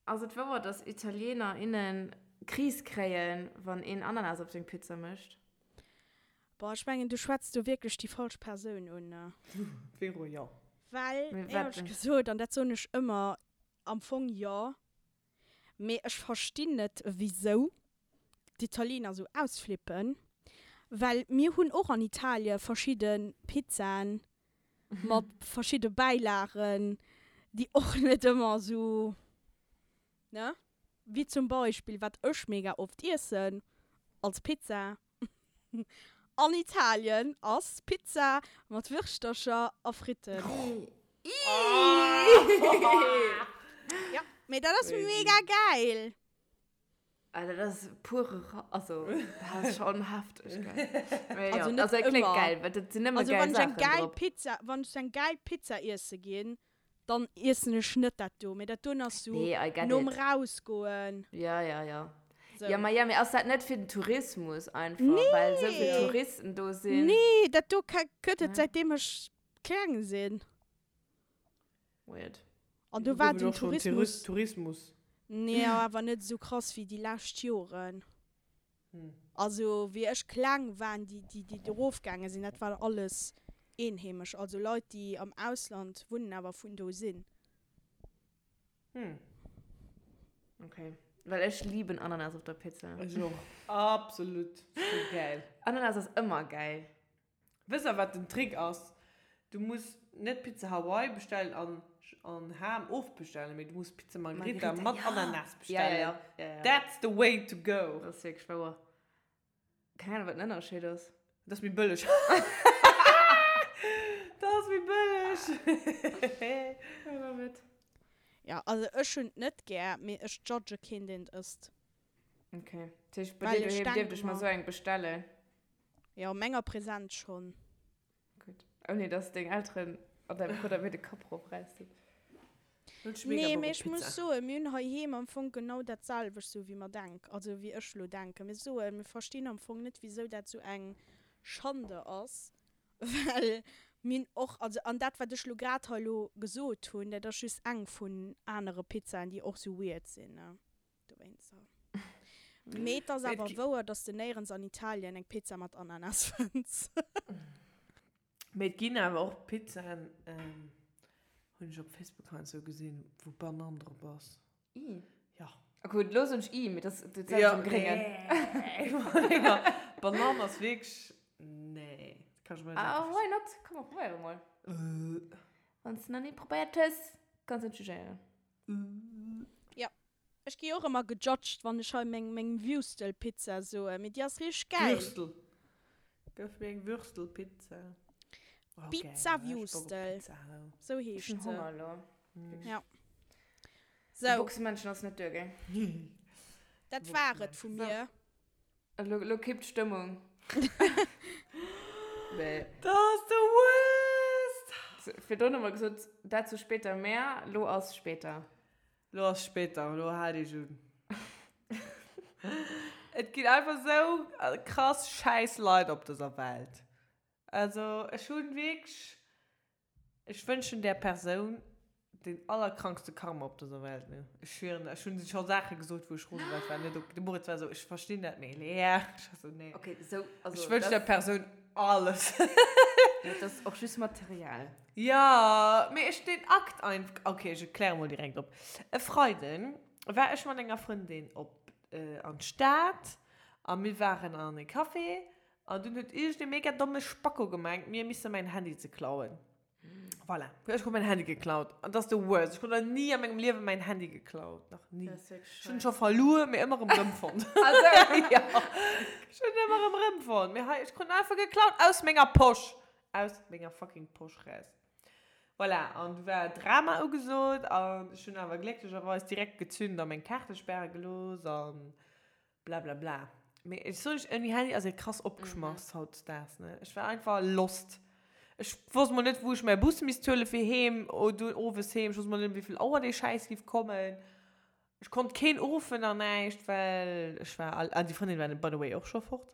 ass et wouer, dass Italiener, innen Kris kréien, wann een Ananas op seng Pizza mécht? Boah, ech mengen, du schwätz do wierklech déi falsch Persoun un. Vero, jo. Well, Mee wat éierlech denn? gesot, an dat soen ech ëmmer, am Fong jo, mee ech verstinn net, wisou d'Italiener esou ausflippen, well mir hunn och an Italie verschidde Pizzaen mat verschidde Bäilagen, déi och net ëmmer esou, ne? Wéi zum Beispill, wat ech mega oft iessen als Pizza an Italien, ass Pizza mat Wirschtercher a Fritten. Ja, mee dat ass mega gäil! Ah, dat ass pure Ra also, dat ass schon hefteg, gell? Mee Also jo, net also et kléngt ëmmer. geil, well dat sinn nëmme Also geil wann ech eng Saachen gäil drop. Pizza, wann ech eng gäil Pizza iesse ginn, dann iessen ech net dat do, mee dat doen ass sou Nee, I get nom it. rausgoen. Ja, ja, ja. Sou. Ja, ma ja, mee ass dat net fir den Tourismus einfach, well sou vill Nee! Touristen do sinn? Nee, dat do gëtt et Nee? säitdeem ech kleng sinn. Weird. An do war Gouf et den och schon Tourismus. Tourismus. Nee, awer net esou krass wéi déi lescht Joren. Also wéi ech kleng waren, déi déi déi do rofgaange sinn, dat war alles eenheemesch, also Leit déi am Ausland wunnen awer vun do sinn. Okay. Well ech lieben Ananas op der Pizza. Ech och. Absolut. Sou gäil. Ananas ass ëmmer gäil. Wëss der wat den Trick ass? Du muss net Pizza Hawaii bestellen an an Ham ofbestellen, mee du muss Pizza Margherita mat Ananas bestellen. Ja, ja, ja. That's the way to go. Dat ass wierklech wouer. Keng Ahnung wat den Ënnerscheed ass. Dat ass méi bëlleg. Dat ass méi bëlleg. I love it. Ja, also ech hunn et net gär, mee ech judge keen deen et ësst. Okay. Dat heescht bei dir doheem dierft ech mer esou eng bestellen? Jo, menger Präsenz schonn. Gutt. Ouni dass deng Elteren an däi Brudder mir de Kapp erofräissen. Nee, mee ech muss soen, mir hunn heiheem am Fong genau dat selwecht, sou wéi mer denk, also wéi ech elo denken. Mir soen, mir verstinn am Fong net, wisou dat sou eng Schande ass, well. Mir hunn och, also an dat wat ech lo grad hei lo gesot hunn, dat ass just eng vun anere Pizzaen déi och sou weird sinn, ne, dowéinster. Mee et ass awer wouer, dass de néierens an Italien eng Pizza mat Ananas fënns. Mee et ginn awer och Pizzaen, hunn ech op Facebook heiansdo gesinn, wou Banann drop ass. I. Ja. Gutt, lo soen ech I, mee dat ass dat am Gréngen. Nee. Banann ass wierklech, nee. Dat kann ech mer net Ah, why not? Komm, mer probéiere mol. Wann s de nach ni probéiert hues, kanns de net jugéieren. Jo, ech gi och ëmmer gejudged, wann ech hei meng meng Würstelpizza soen, mee déi ass richteg gäil. Würstel. Gëff mir eng Würstelpizza. Oh, Pizza Würstel, sou heescht se. Ech hunn Honger elo. Ja. Sou. De Boxemännchen ass net duer, gell? Dat war et vu mir. Elo, elo kippt d'Stëmmung. Nee. Dat ass de worst! Virdrun hu mer gesot, dazu später mehr. Lo ass später. Lo ass später, lo haalt iech un. Et ginn einfach sou krass schäiss Leit op dëser Welt. Also ech hunn wierklech, ech wënschen där Persoun deen allerkrankste Karma op dëser Welt, ne. Ech schwieren, ech hunn scho Saache gesot, wou ech rose war, ech war net ok. De Moritz war esou, ech verstinn dat net, Lea. Ech war esou, nee. Okay, sou, also. Ech wënschen der Persoun alles. Dat ass och just Material. Jo, mee ech den Akt einfach, okay, ech kläre mol direkt op. E Freiden war ech mat enger Frëndin op an d'Stad a mir waren an e Café an dunn huet iergend e mega domme Spacko gemengt, mir misse mäin Handy ze klauen. Voilà, ech krut mäin Handy geklaut an dat ass the worst. Ech krut nach ni a mengem Liewe mäin Handy geklaut, nach ni. Ech hunn en scho verluer, mee ëmmer erëm rëmfonnt. Jo, ech hunn en ëmmer erëm rëmfonnt, mee hei, ech krut en einfach geklaut aus menger Posch. Aus menger fucking Posch raus. Voilà, an du war Drama ugesot an ech hunn awer glécklecherweis direkt gezünd a meng Kaarte späre gelooss an blablabla. Mee ech soen iech, ouni Handy ass ee krass opgeschmass hautdesdaags, ne. Ech war einfach lost. Ech wosst mol net, wou ech mäi Bus misst huele fir heem, dunn owes heem. Ech wosst mol net, ëm wéi vill Auer dee Schäiss giff kommen. Ech konnt keen uruffen an näischt, well ech war al, an déi Frëndin war by the way och scho fort.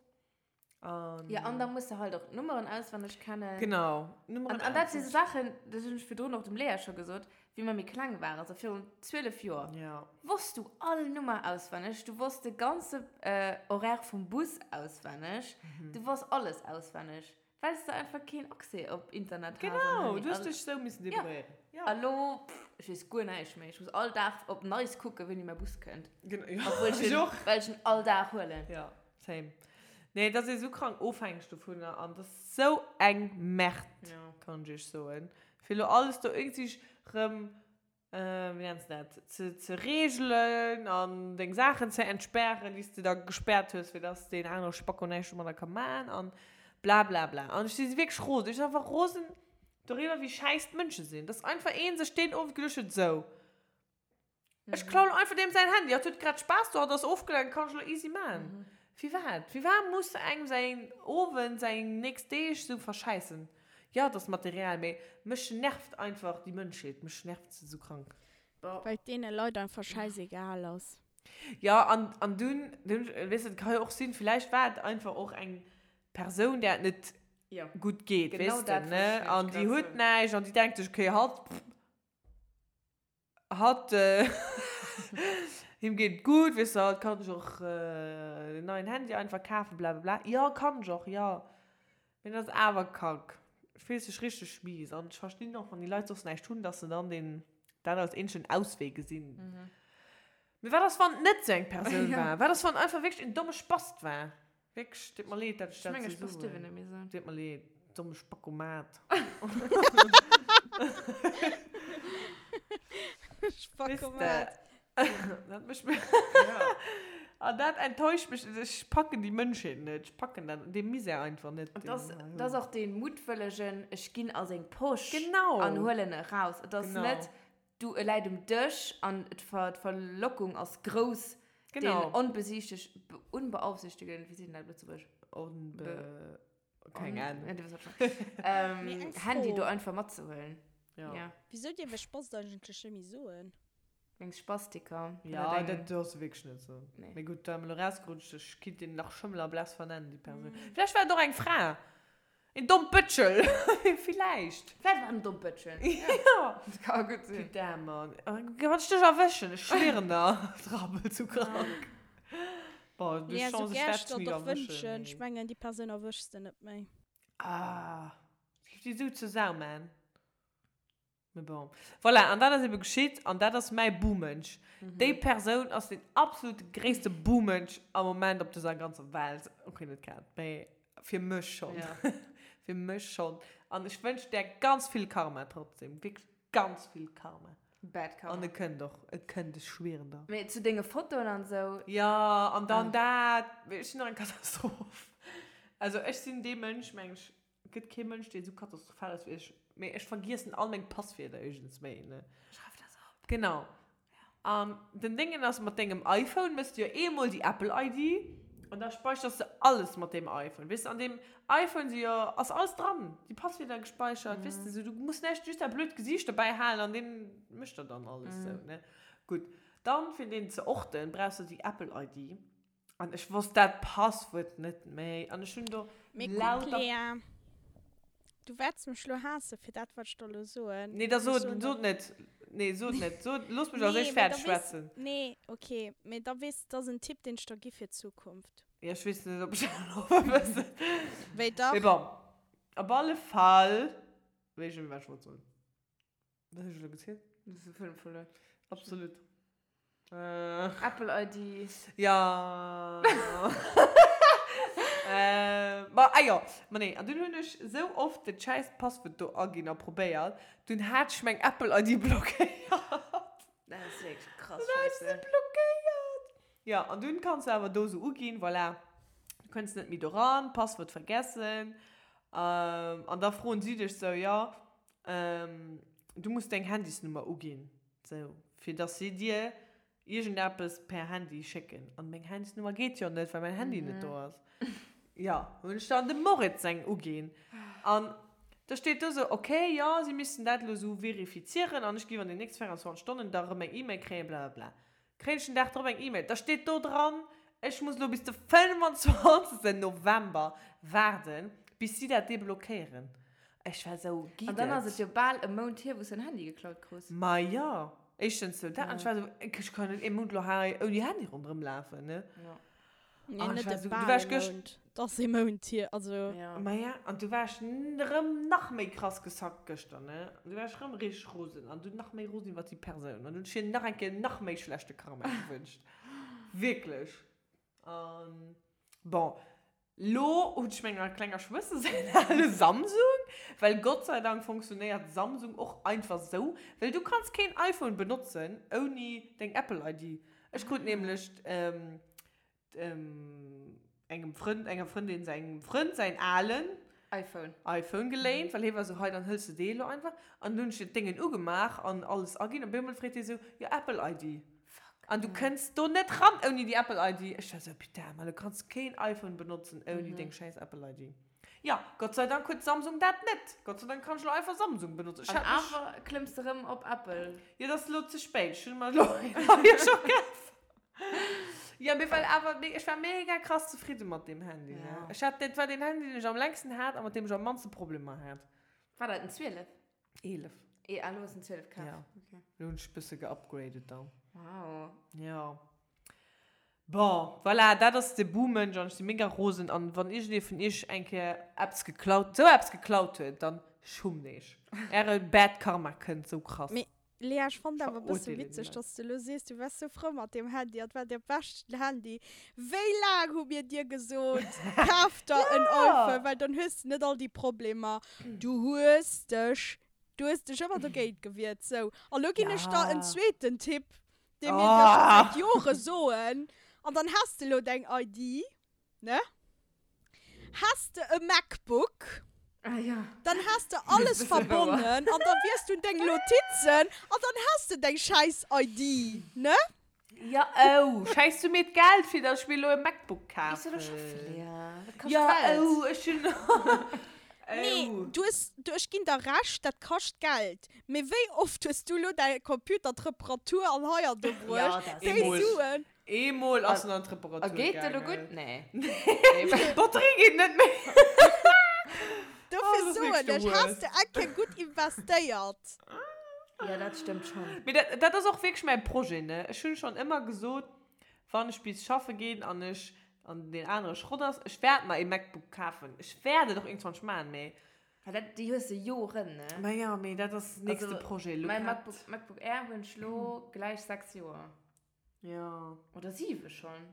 An ja, an da muss de halt och d'Nummeren auswenneg kennen. Genau. Nummeren an, an dat si so Sachen, dat hunn ech virdrun och dem Lea scho gesot, wéi mer méi kleng waren, also virun 12 Joer, ja. wosst du all Nummer auswenneg, du wosst de ganze äh, Horaire vum Bus auswenneg, mhm. du wosst alles auswenneg, well s de einfach keen Accès op Internet has. Genau, du hues dech sou missen débrouilléieren. Ja. A lo, ech weess guer näischt méi. Ech muss all Dag op Neis kucken, wéini mäi Bus kënnt. Genau, ja. Obwuel ech en, well ech en all Dag huelen. Ja. Same. Nee, et ass ee sou krank ofhängeg dovunner an et ass sou eng Merde, Ja. kann ech iech soen. Fir elo alles do iergendwéi rëm, wéi nenns de dat, ze, ze reegelen an deng Saachen ze entspären, déi s de da gespäert hues, fir dass deen anere Spacko näischt domadder ka man an blablabla. An ech si wierklech rosen. Ech sinn einfach rosen doriwwer, wéi schäiss d'Mënsche sinn. Dass einfach ee sech deen Owend geduecht huet, sou, Ech klauen einfach deem säin Handy. Hatt huet grad Spaass do, hatt ass ofgelenkt, kann ech elo easy man. Firwat? Firwat muss engem säin Owend, säin nächst Deeg sou verschäissen? Jo, et ass Material, mee mech nervt einfach déi Mënschheet, mech nervt se sou krank. Well et deene Leit einfach schäisegal ass. Jo, an, an dunn, dunn, weess de, et ka jo och sinn, villäicht war et einfach och eng Persoun, där et net gutt geet, weess de, ne? An déi huet näischt an déi denkt sech, okay, hatt, pff, Hatt, him geet et gutt, weess de, hatt kann sech och en neien Handy einfach kafen, blablabla. Jo, kann ech och, jo. Mee dat ass awer kack. Et fillt sech richteg mies an. Ech verstinn och, wann déi Leit soss näischt hunn, dass se dann deen, dat als eenzegen Auswee gesinn. Mee wat ass, wann et net sou eng Persoun war? Wat ass, wann et einfach wierklech en domme Spast war? Wierklech, deet mer leed, dat ech dat sou soen. Deet mer leed, domme Spackomat. Spackomat. Dat mécht mir. An dat enttäuscht mech. Ech packen déi Mënschheet net. Ech packen dat, dee Misär einfach net. An dat ass, dat ass och dee muttwëllegen, ech ginn a seng Posch Genau. an huelen e raus. Et ass Genau. net, du, e läit um Dësch an d'Verlockung ass grouss, Genau. Den onbesichteg, unbeaufsichtigen, wéi seet een dat op Lëtzebuergesch? Onbe, keng Ahnung. Ja, du weess wat ech mengen. Mee eng Handy Fro. do einfach matzehuelen. Ja. Ja. Wisou dierf ech Spast eigentlech net méi soen? Wéinst Spastiker. Ja, dat dierfs de wierklech net soen. Nee. Mee gutt, da mir elo rausgerutscht, ech kinnt deen nach Schëmmel a Bless vernennen, déi Persoun. Vläicht war et och eng Fra. Een Dompëtschel! Villäicht. Vläicht war en Dompëtschel. Ja. Dat ka gutt sinn. Putain, Mann. Wann ech dech erwëschen, ech schwieren der, drabbel zu krank. Bon, du Lea, Chance, sou ech gär wäert ech dech der ni och erwëschen, wënschen, ech mee. mengen, déi Persoun erwëschs de net méi. Ah, ech géif déi sou zur Sau man. Mais bon. Voilà, an dat ass ebe geschitt an dat ass mäi Buhmënsch. Déi Persoun ass den absolut gréisste Buhmënsch am Moment op dëser ganzer Welt. Okay, net grad, mee fir mech schonn. Ja. Fir mech schonn. An ech wënsch där ganz vill Karma trotzdem. Wierklech ganz vill Karma. Bad Karma. An e kënnt och. E kënnt, ech schwieren der. Mee zu denge Fotoen an esou. Ja, an dann dat. Ech sinn och eng Katastroph. Also ech sinn dee Mënsch, meng ech, Et gëtt kee Mënsch, deen esou katastrophal ass wéi ech. Mee ech vergiessen all meng Passwierder iergends méi, ne? Schreif der se op. Genau. An den Déngen ass, mat dengem iPhone méchs de jo eemol déi Apple ID an da speichers de alles mat deem iPhone. Weess de, an deem iPhone si jo, ass alles dran, déi Passwierder gespeichert, weess de, sou du muss näischt, just dat blöd Gesiicht dobäi halen an deen mécht der dann alles sou, ne? Gutt. Dann, fir deen ze orten, brauchs de déi Apple ID. An ech wosst dat Passwuert net méi. An ech hunn do Mee kuck, lauter. Lea, du wäerts mech lo haasse fir dat, wat ech der lo soen. Nee, da Ech sot, soen sot der. net. Nee, sot net. Sot, looss mech als Nee, éischt mee fäerdeg da weess. schwätzen. Nee, okay. Mee da weess, dat ass en Tipp, deen ech der gi fir d'Zukunft. Ja, ech weess net, ob ech dat elo wëssen. Wéi dach. Mee bon, op alle Fall weess ech net méi, wat ech wollt soen. Wat hunn ech elo gezielt? Du hues de Fëlm verluer. Absolut. Äh. Apple ID. Ja. äh, ma, ah jo, ma nee, an dunn hunn ech sou oft dat schäiss Passwuert do aginn a probéiert, dunn hat ech meng Apple ID blockéiert. Dat ass wierklech krass Dunn hat ech se Scheisse. blockéiert. Ja, an dunn kanns du awer do sou uginn, voilà, du kënns net méi do ran, Passwuert vergessen. Ähm, an da froen si dech sou, jo, Du muss deng Handysnummer uginn, sou, fir dass si dir iergendeppes per Handy schécken. An meng Handysnummer geet jo net, well mäin Handy net do ass. Jo, hunn ech dann dem Moritz seng uginn. An da steet do sou, ok, jo, si missten dat elo sou verifizieren an ech géif an den nächste 24 Stonnen da erëm eng E-Mail kréien, blablabla. Kréien ech den Dag drop eng E-Mail, da steet do dran, ech muss elo bis de 25. November waarden, bis si dat deblockéieren. Ech war esou, An dann ass et jo bal e Mount hier, wou s de en Handy geklaut krus. Ma jo, éischtens sou dat, an ech war esou, ech kann net ee Mount elo hei ouni Handy ronderëm lafen, ne? Jo. Nee, An ech net war e esou, du bal war ech e gëscht. Mount. Et ass ee Mount hier, also. Ja. Ma ja, an du war ech rëm nach méi krass gesackt gëschter, ne? An du war ech rëm richteg rosen an du nach méi rosen iwwer déi Persoun. An du hunn ech hir nach eng Kéier nach méi schlechte Karma gewënscht. Wierklech. An bon, lo hunn ech menger klenger Schwëster säin ale Samsung, well Gott sei Dank funktionéiert Samsung och einfach sou, well du kanns keen iPhone benotzen ouni deng Apple ID. Ech krut nämlech engem Frënd, enger Frëndin sengem Frënd säin alen iPhone. iPhone geléint, well hie war esou, hei, dann hëls de dee elo einfach. An dunn hunn ech dat Déngen ugemaach an alles aginn. Op eemol freet hie esou, jo, Apple ID. Fuck. An du kënns do net ran ouni déi Apple ID. Ech war esou, putain, man, du kanns keen iPhone benotzen ouni deng schäiss Apple ID. Jo, Gott sei Dank huet Samsung dat net. Gott sei Dank kann ech elo einfach Samsung benotzen. Ech An hat mech. awer klëmms de rëm op Apple. Jo, dat ass elo ze spéit. Ech hunn mer elo een neie scho kaf. Jo, mee well awer, mee ech war mega krass zefridde mat deem Handy, ne. Ja. Ech hat, dat war deen Handy, deen ech am längsten hat a mat deem ech am mannste Problemer hat. War dat en 12? 11. Eh, ah, lo hues en 12 kaf. Ja. Okay. Lo hunn ech e bësse geupgradet dann. Wow. Ja. Bon, voilà, dat ass de Buhmënsch an ech si mega rosen an wann iergendee vun iech eng Kéier eppes geklaut, sou eppes geklaut huet, dann schummt iech. Äre Bad Karma kënnt sou krass. Mee Lea, ech fannt awer e bësse Verurteelen déi witzeg, Leit. dass de lo sees, du waars sou frou mat deem Handy an et war däi beschten Handy. Wéi laang hu mir dir gesot, kaf der en iPhone, well dann hues de net all déi Problemer. Du hues dech, du hues dech ëmmer dogéint gewiert. Sou, a lo ginn ech der en zweeten Tipp, dee mir dir scho säit Jore soen, an dann has de lo deng ID. Ne? Has de e MacBook, Ah ja. dann has de alles verbonnen an da wiers du deng Notizen an dann has de deng schäiss ID, ne? Ja, oh, schäiss du mir d'Geld fir dass ech mir elo e MacBook Gees du kafen? do schaffen, Lea? Dat kascht Ja, Geld. oh, ech hunn, Nee, oh. du hues, du, ech ginn der Recht, dat kascht Geld. Mee wéi oft hues du elo däi Computer d'Reparatur an hei an do Ja, bruecht? dat ass Déi Eemol. Suen. Eemol ass en an d'Reparatur A geet de lo gaangen. gutt? Nee. Nee. D'Batterie geet net méi. Dofir soen ech, has de eng Kéier gutt investéiert. Ja, dat stëmmt schonn. Mee dat, dat ass och wierklech mäi Projet, ne? Ech hunn schonn ëmmer gesot, wann ech bis schaffe ginn an ech, an deen anere Schrott ass, ech wäert mer ee MacBook kafen. Ech wäert et och iergendwann maachen, mee. Well dat, déi hues de Joren, ne? Ma jo, mee dat ass nächste Also, Projet. Lo mäi grad. MacBook, MacBook Air hunn ech lo gläich 6 Joer. Jo. Oder 7 schonn.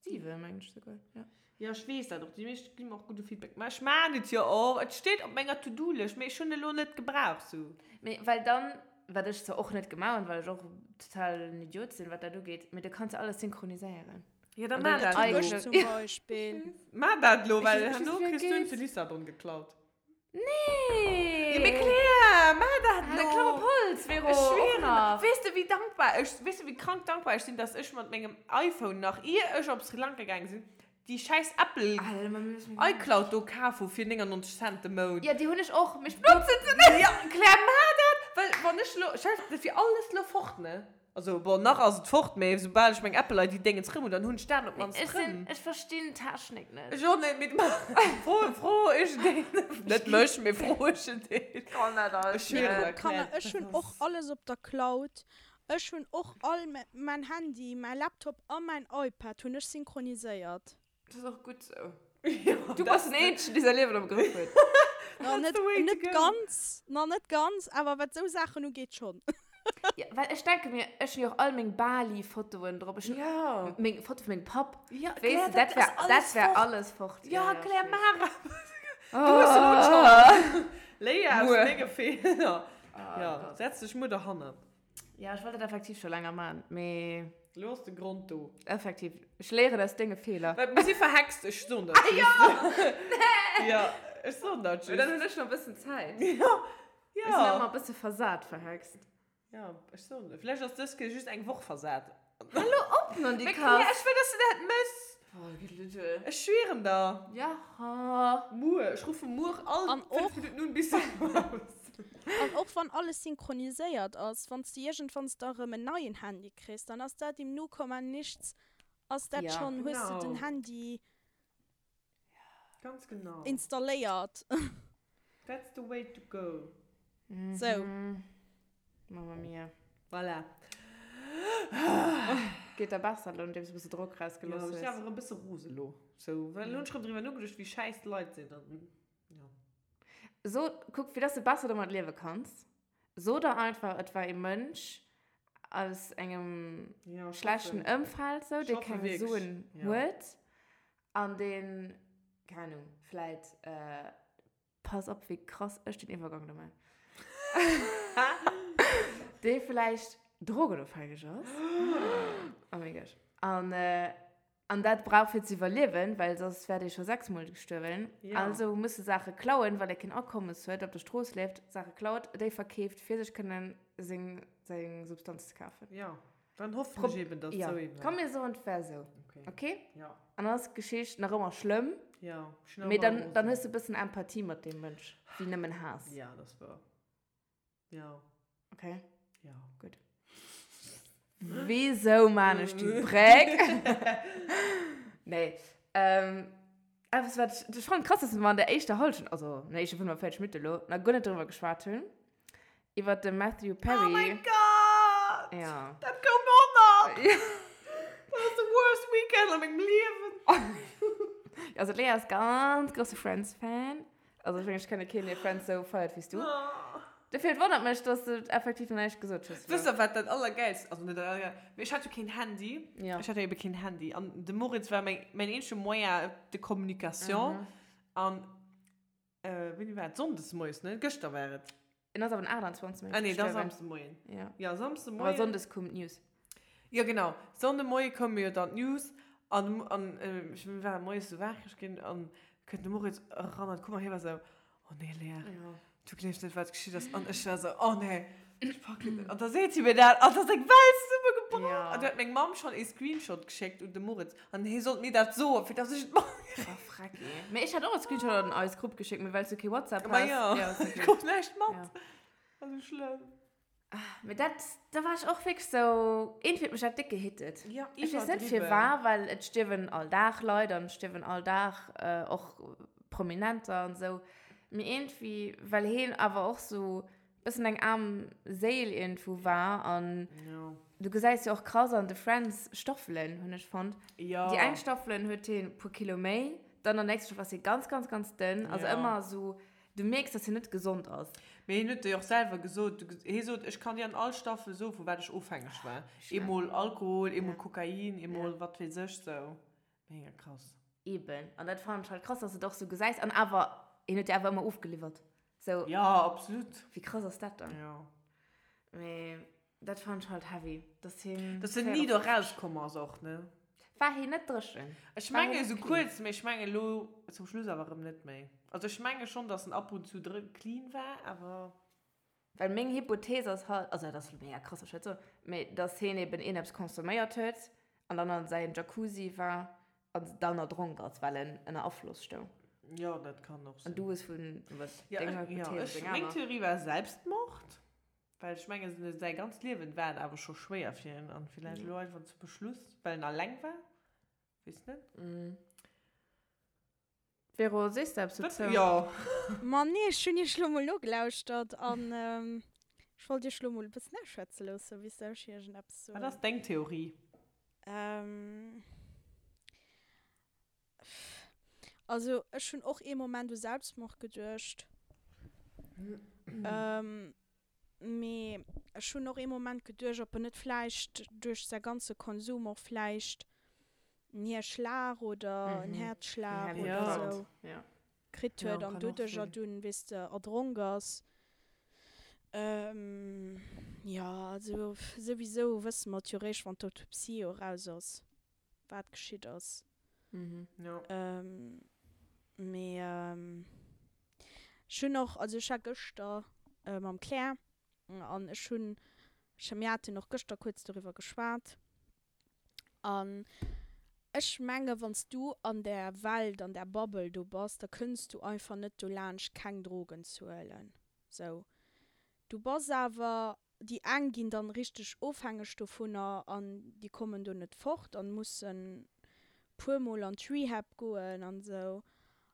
7 mengen ech souguer, jo. Jo, ech weess dat och. Déi meescht gi mer och gudde Feedback. Mä ech maan et jo och. Et steet op menger To-Do-Lëscht, mee ech hunn elo net gebraucht, sou. Mee well dann, wat ech zwar och net gemaach hunn, well ech och total en Idiot sinn, wat dat ugeet, mee du kanns jo alles synchroniséieren. Jo, da An maa dein dat elo. Ech zum Beispill. Maa dat elo, well Ech- ech herno weess, wéi kriss du en geet. zu Lissabon geklaut. Nee! Jo, mee Claire, maa dat Ah, elo! Klapp op Holz, Vero! Ech Och schwieren, nach. weess de wéi dankbar ech, weess de wéi krank dankbar ech sinn, dass ech mat mengem iPhone nach ier ech op Sri Lanka gaange sinn, déi schäiss Apple Alter, ma mir müssen mir iCloud do kaf hu fir 99 Cent de Mount. Ja, déi hunn ech och, mee ech benotzen se net! Ja, Claire, maa dat! Well wann ech elo, stell dir vir alles elo fort, ne? Also bon, nach ass et fort, mee soubal ech meng Apple ID Déngens rëm hunn, dann hunn ech dat op d'mannst Ech sinn, rëm. ech verstinn d'Technik net. Ech och net, mee fro, fro ech deen, net mech, mee fro ech deen. Kann dat alles Ech schwieren net. der, Kanner, Claire, ech hunn dat och ass. alles op der Cloud. Ech hunn och all mäin Handy, mäi Laptop a mäin iPad hunn ech synchroniséiert. Dat ass och gutt sou. Ja, Du bass den eenzegen, dee säi Liewen am Grëff huet. Na, net, the way to net go. ganz, na net ganz, awer wat sou Saachen ugeet schonn. Ja, well ech denke mir, ech hunn jo och all meng Bali-Fotoen drop. Ech hunn Ja. meng Foto vu mengem Papp. Ja, Weess Claire, de, dat dat wär, ass alles dat wär fort. alles fort. Ja, Claire, ech weess. Mara. Du hues elo d'Chance. Léier aus Muer. denge Feeler. Ah, Ja, Gott. setz dech muer derhannert. Ja, ech wollt dat effektiv scho länger maachen, mee. Lo ass de Grond do. Effektiv. Ech léieren aus denge Feeler. Well mir si verhext, ech soen dat just. Ah jo! Ja, ech soen dat just. Mee dann hunn ech nach e bëssen Zäit. Ja, Ech sinn ja. ëmmer e bësse versat verhext. Ja, ech soen dat. Vläicht ass dës Kéier just eng Woch versat. Hallo op, non déi Mee Claire, Kass! ech wëll, dass du dat mëss. Oh, Gelüdel. Ech schwieren der. Ja. Muer, ech ruffe muer all An 5 och. Minutten un bis du kommst. An och wann alles synchroniséiert ass, wann s de iergendwanns da rëm en neien Handy kriss, dann ass dat im Nu Komma Nichts, ass dat Ja. schonn, hues de den Genau. Handy Ganz genau. installéiert. That's the way to go. Sou. Mamma mia. Voilà. Geet der besser elo, nodeems du e bësse Drock rausgelooss Jo, ech hues? sinn awer e bësse rose elo. Sou, well elo hunn ech rëm driwwer nogeduecht, wéi schäiss d'Leit sinn an, jo. So, kuck, fir dass du besser domat liewe kanns, so der einfach, et war ee Mënsch aus engem Ja, ech schlechten hoffen. Ëmfeld, sou, Ech dee hoffe keng wierklech, Suen ja. huet an deen, keng Ahnung, vläit, pass op, wéi krass ech den Iwwergang do man, dee vläicht drogenofhängeg ass, oh mein Gott, an, An dat brauch fir ze iwwerliewen, well soss wär dee scho sechsmol gestuerwen. Ja. Also muss e Saache klauen, well e keen Akommes huet, op der Strooss lieft, Saache klaut, déi verkeeft, fir sech kënnen seng, seng Substanz ze kafen. Ja, dann hoffen Prob ech eben, dass et ja. sou eben Komm ass. mir soen, et wär sou. Okay. Okay? Ja. An dann ass d'Geschicht nach ëmmer schlëmm, Ja, ech sinn nach mee ëmmer dann, dann rosen. hues de e bëssen Empathie mat deem Mënsch, wéi nëmmen Haass. Ja, dat ass wouer. Ja. Okay. Ja. Gut. Wieso man ech déi Bréck? Nee. Ähm, etwas, wat ich, ich fand krass, dass wir an der éischter Halschent, also an der éischter 45 Minutten elo, nach guer net drüber geschwat hunn. Iwwer de Matthew Perry. Oh mein Gott! Ja. Dat koum och nach! Ja. Dat ass de worst weekend a mengem Liewen. Also d'Lea ass ganz grosse Friends-Fan. Also ech mengen, ech kenne keen, dee Friends sou feiert wéi s du. Dofir, et wonnert mech, dass du effektiv nach näischt gesot hues. Wësst der, wat dat Allergäilst, also net dat Allergäilst, mee ech hat jo keen Handy. Ja. Ech hat jo ebe keen Handy. An de Moritz war mäin, mäin eenzege Moyen de communication. An, wéini war et? Sonndes moies, ne? Gëschter war et. En ass awer den 28. Ah nee, da gestuerwen. Samsdemoien. Ja. Ja, Samsdemoien. Aber Sonndes koum d'News. Ja, genau. Sonndemoie koume jo dann d'News an, an ech war moies sou wakereg ginn an kënnt de Moritz eran an d'Kummer. Hie war sou, Oh nee, Lea, Ja. du gleefs net, wat geschitt ass. An ech war sou, Oh nee, ech packen et net. An da seet si mir dat an da ass eng Welt zesummegebrach. Ja. An du huet meng Mamm schonn ee Screenshot geschéckt un de Moritz an hie sollt mir dat soen, fir dass ech et matkritt. Oh, Frecki. Mee ech hat och e Screenshot an eis Grupp geschéckt, mee well s du kee WhatsApp Ma has. ja, Ja, ist ech okay. krut näischt mat. Ja. War sou schlëmm. Mee dat, da war ech och wierklech sou, iergendwéi huet mech dat déck gehittet. Ja, Ech weess net iwwerdriwwen. firwar, well et stierwen all Dag Leit an et stierwen all Dag och Prominenter an esou. Mee iergendwéi, well heen awer och sou bëssen eng aarm Séil iergendwou war an du gesäis jo och krass an de Friends Staffelen, hunn ech fonnt. Déi eng Staffelen huet heen e puer Kilo méi, dann an der nächster Staffel ass hie ganz, ganz, ganz dënn. Also ëmmer sou, du mierks, dass hien net gesond ass. Mee hien huet jo och selwer gesot, hie sot, ech kann dir an all Staffel soen, vu wat ech ofhängeg war. Eemol Alkohol, eemol Kokain, eemol wat weess ech, sou. Mega krass. Eben, an dat fannen ech halt krass, dass de et och sou gesäis. An awer, hien huet jo awer ëmmer ofgeliwwert. Sou. Ja, absolut. Wéi krass ass dat dann? Ja. Mee dat fannen ech halt heavy, dass hien. Dass en ni do rauskomm ass och, ne? War hien net dréchen? Ech mengen esou kuerz, mee ech mengen elo zum Schluss awer erëm net méi. Also ech menge schonn, dass en ab und zu clean war, awer. Well meng Hypothees ass halt, also dat ass elo mega krass, wat ech dat soen, mee dass hien eben iergendeppes consomméiert huet an dann an säin Jacuzzi war an dann erdronk ass, well en ënner Afloss stoung. Jo, dat kann och sinn. An du hues vun, wat, denger Hypothees oder denger aner? Meng Theorie war Selbstmord, well ech mengen, säi ganzt Liewen war et awer scho schwéier fir hien an villäicht elo einfach zum Beschluss, well en alleng war, weess net. Vero, sees de eppes dozou? Jo. Ma nee, ech hunn iech lo mol nogelauschtert an ech wollt iech lo mol e bëssen ausschwätze loossen, bis ech iergendeppes soen. Wat ass deng Theorie? Also ech hunn och ee Moment u Selbstmord geduecht. Mee ech hunn och ee Moment geduecht, ob en net vläicht duerch säi ganze Konsum och vläicht en Hierschlag oder en Häerzschlag oder sou kritt huet an doduercher dunn, weess de, erdronk ass. Jo, also souwisou wësse mer et jo réischt, wann d'Autopsie jo eraus ass, wat geschitt ass. Mee ech hunn och, also ech war gëschter mam Claire an ech hunn, mir haten och gëschter kuerz doriwwer geschwat, An ech menge wann s du an där Welt, an där Bubble do bass, da kënns du einfach net dolaanscht keng Drogen ze huelen. Sou. Du bass awer, déi eng ginn dann richteg ofhängeg dovunner an déi kommen do net fort an mussen puer mol an d'Rehab goen an sou.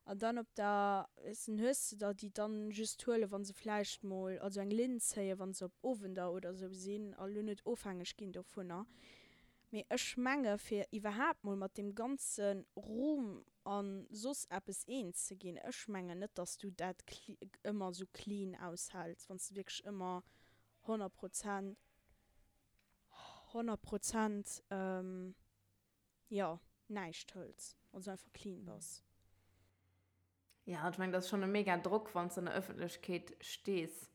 An dann op der, weess en, hues de der, déi dann just huelen, wa se vläicht mol, also eng Linn zéien, wa se op Owender oder sou sinn a lo net ofhängeg ginn dovunner. Mee ech menge fir iwwerhaapt mol mat deem ganze Ruhm a soss eppes eens ze ginn, ech mengen net, dass du dat ëmmer sou clean aushäls, wann s de wierklech ëmmer 100 Prozent, 100 Prozent, jo, näischt hëls, also einfach clean bass. Ja, ech mengen, dat ass schonn e mega Drock, wann s de an der Ëffentlechkeet stees.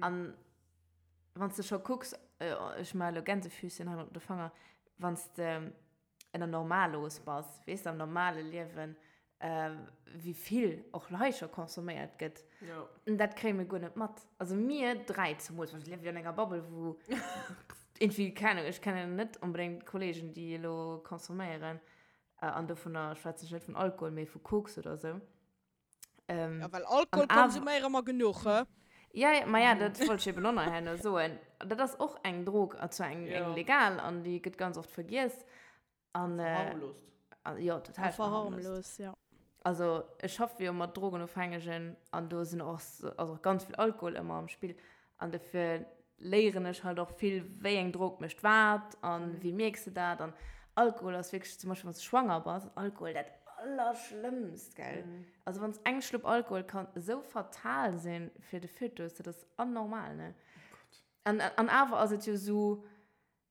An wann s de scho kucks, ech maache elo Gänsefüßchen hei mat de Fanger, wann s de ënner Normalos bass, weess de, am normale Liewen, wéi vill och hei scho consomméiert gëtt. Jo. Dat kréie mir guer net mat. Also mir dräi zemools, well mir liewe jo an enger Bubble, wou irgendwie, keng Ahnung, ech kennen net onbedéngt Kollegen, déi elo consomméieren. An dovunner schwätzen ech net vun Alkohol, mee vu Koks oder esou. Ja, well Alkohol konsuméiere mer genuch, he? Ja, ja, ma ja, dat wollt ech eben och nach herno soen. Dat ass och eng Drog, an zwar eng, eng legal, an déi gëtt ganz oft vergiess. An, Verharmlost. An, jo, total verharmlost. Verharmlost, ja. Also, ech schaffe jo mat Drogenofhängegen an do sinn och, ass och ganz vill Alkohol ëmmer am Spill. An dofir léieren ech halt och vill, wéi eng Drog mécht wat an wéi mierks de dat. An Alkohol ass wierklech, zum Beispill wann s de schwanger bass, Alkohol dat Allerschlëmmst, gell. Also wann s eng Schlupp Alkohol kann esou fatal sinn fir de Fötus, dat ass anormal, ne? An, an awer ass et jo esou,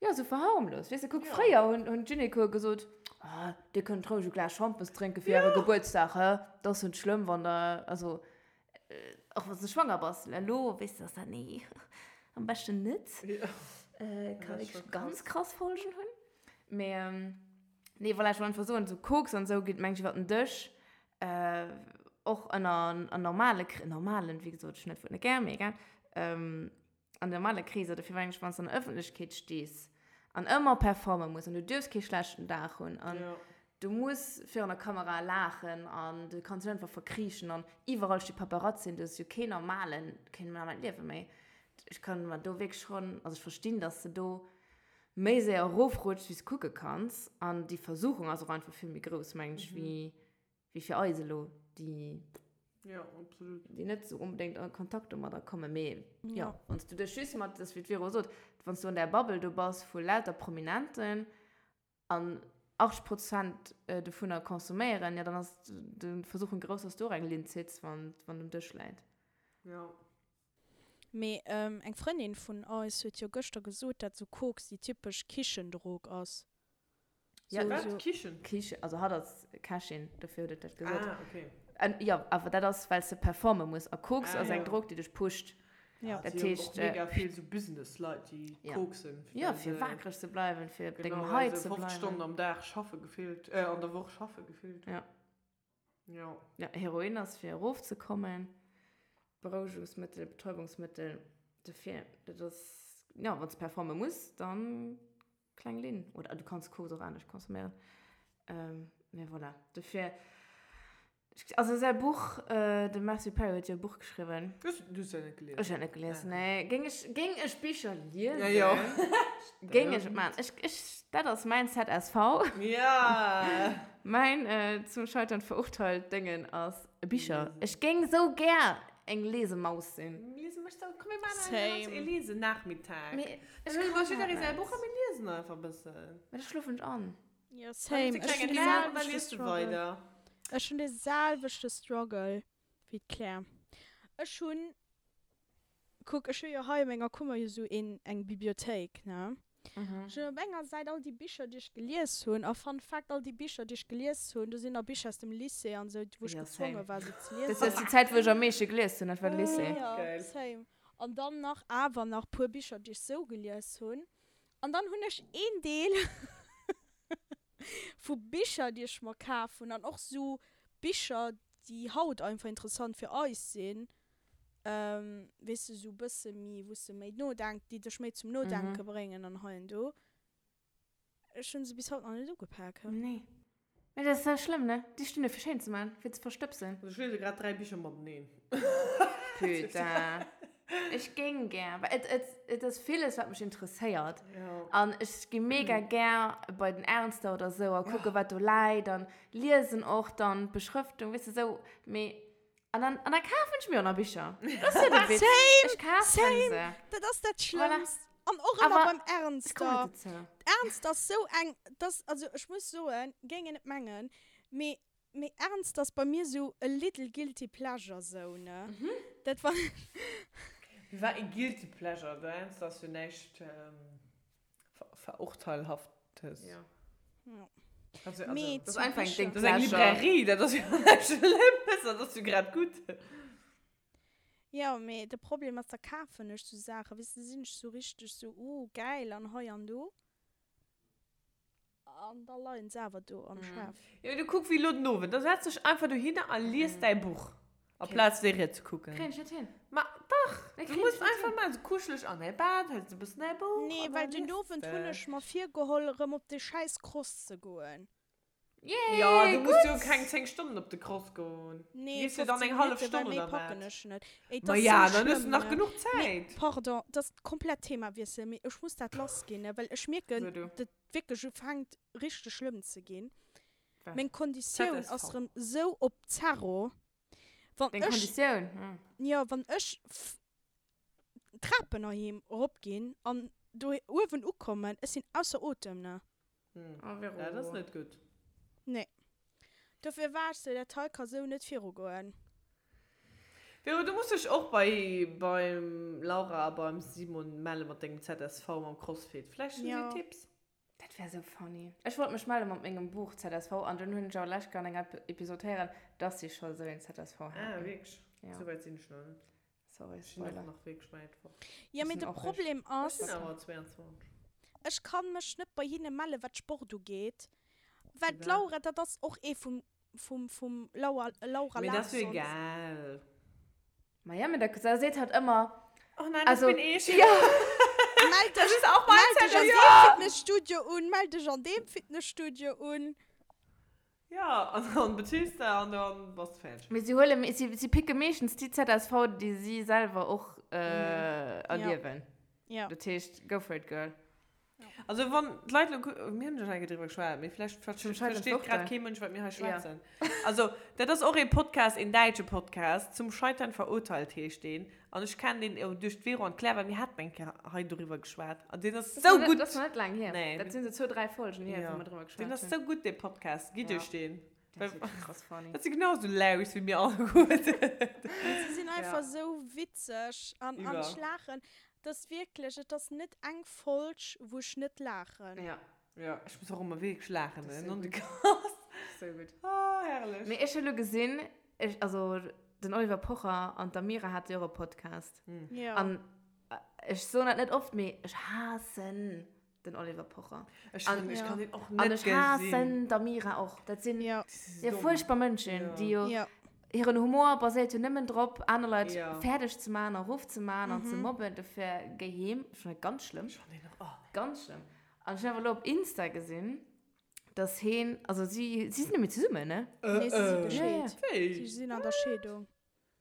Jo, sou verharmlost. Weess de, kuck, fréier hunn, hunn d'Gynekoe gesot, Ah, dir kënnt roueg e Glas Schampes drénke fir äre Gebuertsdag, hä? Dat ass jo net schlëmm, wann der, also, och wann s de schwanger bass. Elo weess de, dass dat, nee, am beschten net. Ka wierklech ganz krass Folgen hunn. Mee, nee, voilà, ech wollt einfach soen, sou Koks an esou geet, meng ech, iwwer den Dësch. Och ënner normale, normalen, wéi gesot, ech hunn dat Wuert net gär, mee egal. An normale Kreeser, dofir mengen ech, wann s de an der Ëffentlechkeet stees an ëmmer performe muss an du duerfs kee schlechten Dag hunn an du muss virun der Kamera laachen an du kanns dech einfach verkriechen an iwwerall sti Paparazzien, du hues jo keen normalen, keen normalt Liewe méi. Ech kann mer do wierklech schonn, also ech verstinn, dass de do méi séier erofrutschs, wéi s de kucke kanns an déi Versuchung ass och einfach vill méi grouss, mengen ech, wéi wéi fir eis elo, déi. Jo, absolut. Déi net esou onbedéngt a Kontakt domadder kommen. Mee jo, wann s du dech just mat, dat ass wéi d'Vero sot, wann s du an där Bubble do bass vu lauter Prominenten an 80 Prozent dovunner consomméieren, jo dann ass de Versuchung grouss, dass du och eng Linn zitts, wann wann um Dësch läit. Jo. Mee eng Frëndin vun eis huet jo gëschter gesot, dat sou Koks déi typesch Kichendrog ass. Ja, wat? So, Kichen? Kichen, also hatt ass Kächin, dofir huet et dat gesot. Ah, okay. An, jo, awer dat ass, well s de performe muss. A Koks ah, ass eng ja. Drog, déi dech pusht. Ja. Dat Si hunn heescht, och mega vill sou Business-Leit, déi ja. koksen. Ja, well fir se- waakreg ze bleiwen, fir op Genau, dengem well High se ze 50 bleiwen. Stonnen am Dag schaffe gefillt, äh, an der Woch schaffe gefillt. Ja. Ja. Ja, Heroin ass fir erofzekommen, Berouegungsmëttel, Betäubungsmëttel, dofir, dat ass, ja, wann s de performe muss, dann Kleng Linn. Oder du kanns Koks och anescht consomméieren. Ähm, mee voilà. Dofir, also säi Buch, äh, de Matthew Perry huet jo e Buch geschriwwen. Du hues, du hues dat net gelies? Ech hunn et net gelies, nee. Géing ech, géing ech Bicher liesen, Ja, jo. géing ech et maachen. Ech, ech, dat ass mäin ZSV. Ja! Mäin äh, zum Scheitern verurteilt Déngen ass Bicher. Ech géing sou gär eng Lesemaus sinn. Liese mech sou, komm mir maachen eng Same. e Lesenachmittag. Mee Dann ech huele mer kann jidderee dat säi net. Buch a mir liesen einfach e bëssen. Mee da schlofen ech an. Ja, Dann same. hues de Ech klengen hunn de Nap an da selwechte liest du Struggle. weider. Ech hunn de selwechte Struggle wéi d'Claire. Ech hunn, kuck, ech hu jo hei a menger Kummer jo sou een, eng Bibliothéik, ne? Ech hunn op enger Säit all déi Bicher, déi ech gelies hunn. A Fun Fact, all déi Bicher, déi ech gelies hunn, do sinn nach Bicher aus dem Lycée an esou, wou ech Ja, gezwonge same. war, se ze Dat liesen. ass déi Zäit, wou ech am meeschte gelies hunn, dat war de Lycée. Ja, Geil. same. An dann nach awer nach puer Bicher, déi ech sou gelies hunn. An dann hunn ech een Deel vu Bicher, déi ech mer kaf hunn an och sou Bicher, déi haut einfach interessant fir eis sinn, weess de, sou bësse méi, wou s de méi nodenk, déi dech méi zum Nodenke bréngen an hei an do. Ech hunn se bis haut nach net ugepak. Nee. Mee dat ass sou schlëmm, ne? Déi stinn do fir schéin ze man, fir ze verstëbsen. Also ech liese grad 3 Bicher mateneen. Putain. Ech géing gär, well et, et, et ass villes, wat mech interesséiert. Ja. An ech gi mega gär bei den Ernster oder sou a kucke, wat do läit an liesen och dann d'Beschrëftung, weess de, sou. Mee An dann, an dann kafen ech mir och nach Bicher. Das ist ja der Witz. Same, Ich kafen same. se. Dat ass dat Voilà. Schlëmmst. An och ëmmer Awer beim ech kommen Ernster. net dozou. Ernst ass sou eng, dass, also ech muss soen, géing een net mengen, mee, mee Ernst ass bei mir sou e little guilty pleasure sou, ne? Dat wann Wie war e guilty pleasure? De Ernst ass jo näischt Verurteilhaftes. Ja. Ja. Also, also, Mee Das zu ist einfach ein Bicher. Ding das ist eng Pleasure. Librairie, dat ass jo näischt Schlëmmes, dat ass jo grad gutt. Jo, mee de Problem ass, da kafen ech sou Saachen, weess de, sinn ech sou richteg sou, oh gäil an hei an do. An da leien se awer do am Schaf. Jo, du kuck wéi elo den Owend, da setz dech einfach dohinner a lies däi Buch, aplaz Serie ze kucken. Kréien ech net hin. Ma dach, Nee, du kréien muss ech net einfach hin. maachen, sou kuscheleg an däi Bett, hëls e bëssen däi Buch Nee, an da well den lies Owend de. hunn ech mer virgeholl, erëm op de schäiss Cross ze goen. Yay, Jo, du muss jo gutt! keng 10 Stonnen op de Cross goen. Du Nee, gees jo dann 15 eng hallef Minutten, well Stonn méi oder packen wat. ech net. Ey, et Ma ass ja, sou dann hues du schlëmm, nach ne? genuch Nee, Zäit. pardon, dat ass komplett Themawiessel, mee ech muss dat lassginn, ne, well ech mierken, So du. dat wierklech ufänkt richteg schlëmm ze ginn. Wat? Meng Konditioun ZSV. ass rëm sou op Zerro. Wann Deng ech, Konditioun? Hm. jo, wann ech d'Trapen heiheem erop ginn an do uewen ukommen, ech sinn ausser Otem, ne? Hm. Oh, Vero. Dat ass net gutt. Nee. Dofir war ech sou, dat hei ka sou net virugoen. Vero, du muss dech och bei beim Laura a beim Simon melle mat dengem ZSV mam Crossfit. Vläicht hunn si Jo. Tipps. Dat wär sou funny. Ech wollt mech melle mat mengem Buch ZSV an dunn hunn ech awer lech an enger Episod héieren, dass si scho sou een ZSV Ah, haten. wierklech? Ja. Sou wäit sinn ech nach net. Sorry, Ech sinn och Spoiler. nach wierklech wäit fort. Jo, Ech mee sinn de och réischt. Problem Ech ass, sinn awer 22. ech kann mech net bei hinne melle wat Sport ugeet, well Firwat? d'Laura, dat ass och ee vum, vum, vum Laura, Laura Mee dat ass jo Larsson. egal. Ma ja, mee da da seet hatt ëmmer, Oh nein, das also, bin ich. ja. Mell Das dech, ist auch mein mell dech Zettel, an ja. deem Fitnesstudio un, mell dech an deem Fitnesstudio un. Ja, an dann beziehst du an dann bass du fertig. Mee si huele, si, si picke meeschtens déi ZSV, déi si selwer och äh, Ja. erliewen. Ja. Dat heescht, go for it, girl. Also wann d'Leit lo, mir hunn jo schon eng Kéier driwwer geschwat, mee vläicht versteet grad kee Mënsch, wat mir hei schwätzen. Also dat ass och ee Podcast, een däitsche Podcast, Zum Scheitern verurteilt heescht deen. An ech kennen deen duerch d'Vero an d'Claire, well mir haten eng Kéier hei doriwwer geschwat. An deen ass sou gutt. Dat ass nach net laang hier. Nee. Dat sinn sou zwou, dräi Folgen hier, wou mir driwwer geschwat hunn. Deen ass sou gutt, dee Podcast. Gitt iech deen. Dat ass wierklech krass funny. Dat si genau sou Laus wéi mir alleguerten. Si sinn einfach sou witzeg an ech laachen. Et ass wierklech, et ass net eng Folg, wou ech net laachen. Ja. Ja, ech muss och ëmmer wierklech laachen, ne? Non de Kass. Sou gutt. Oh, herrlech. Mee ech hu lo gesinn, ech, also den Oliver Pocher an d'Amira hate jo och e Podcast. Ja. An ech soen dat net oft, mee ech haassen den Oliver Pocher. Ech An, kann, ech kann den och an net ech gesinn. haassen d'Amira och. Dat sinn Ja. jo fuerchtbar Mënschen, Ja. déi jo Ja. hiren Humor baséiert jo nëmmen drop, aner Leit Ja. fäerdeg ze maachen a rofzemaachen an ze mobben. Dofir géi heem. Ech fannen dat ganz schlëmm. Ech fannen den och, oh nee. Ganz schlëmm. An ech hunn awer elo op Insta gesinn, dass heen, also si, si sinn net méi zesummen, ne? Nee, si si Äh, gescheet. Wéi? Si sinn an der Scheedung.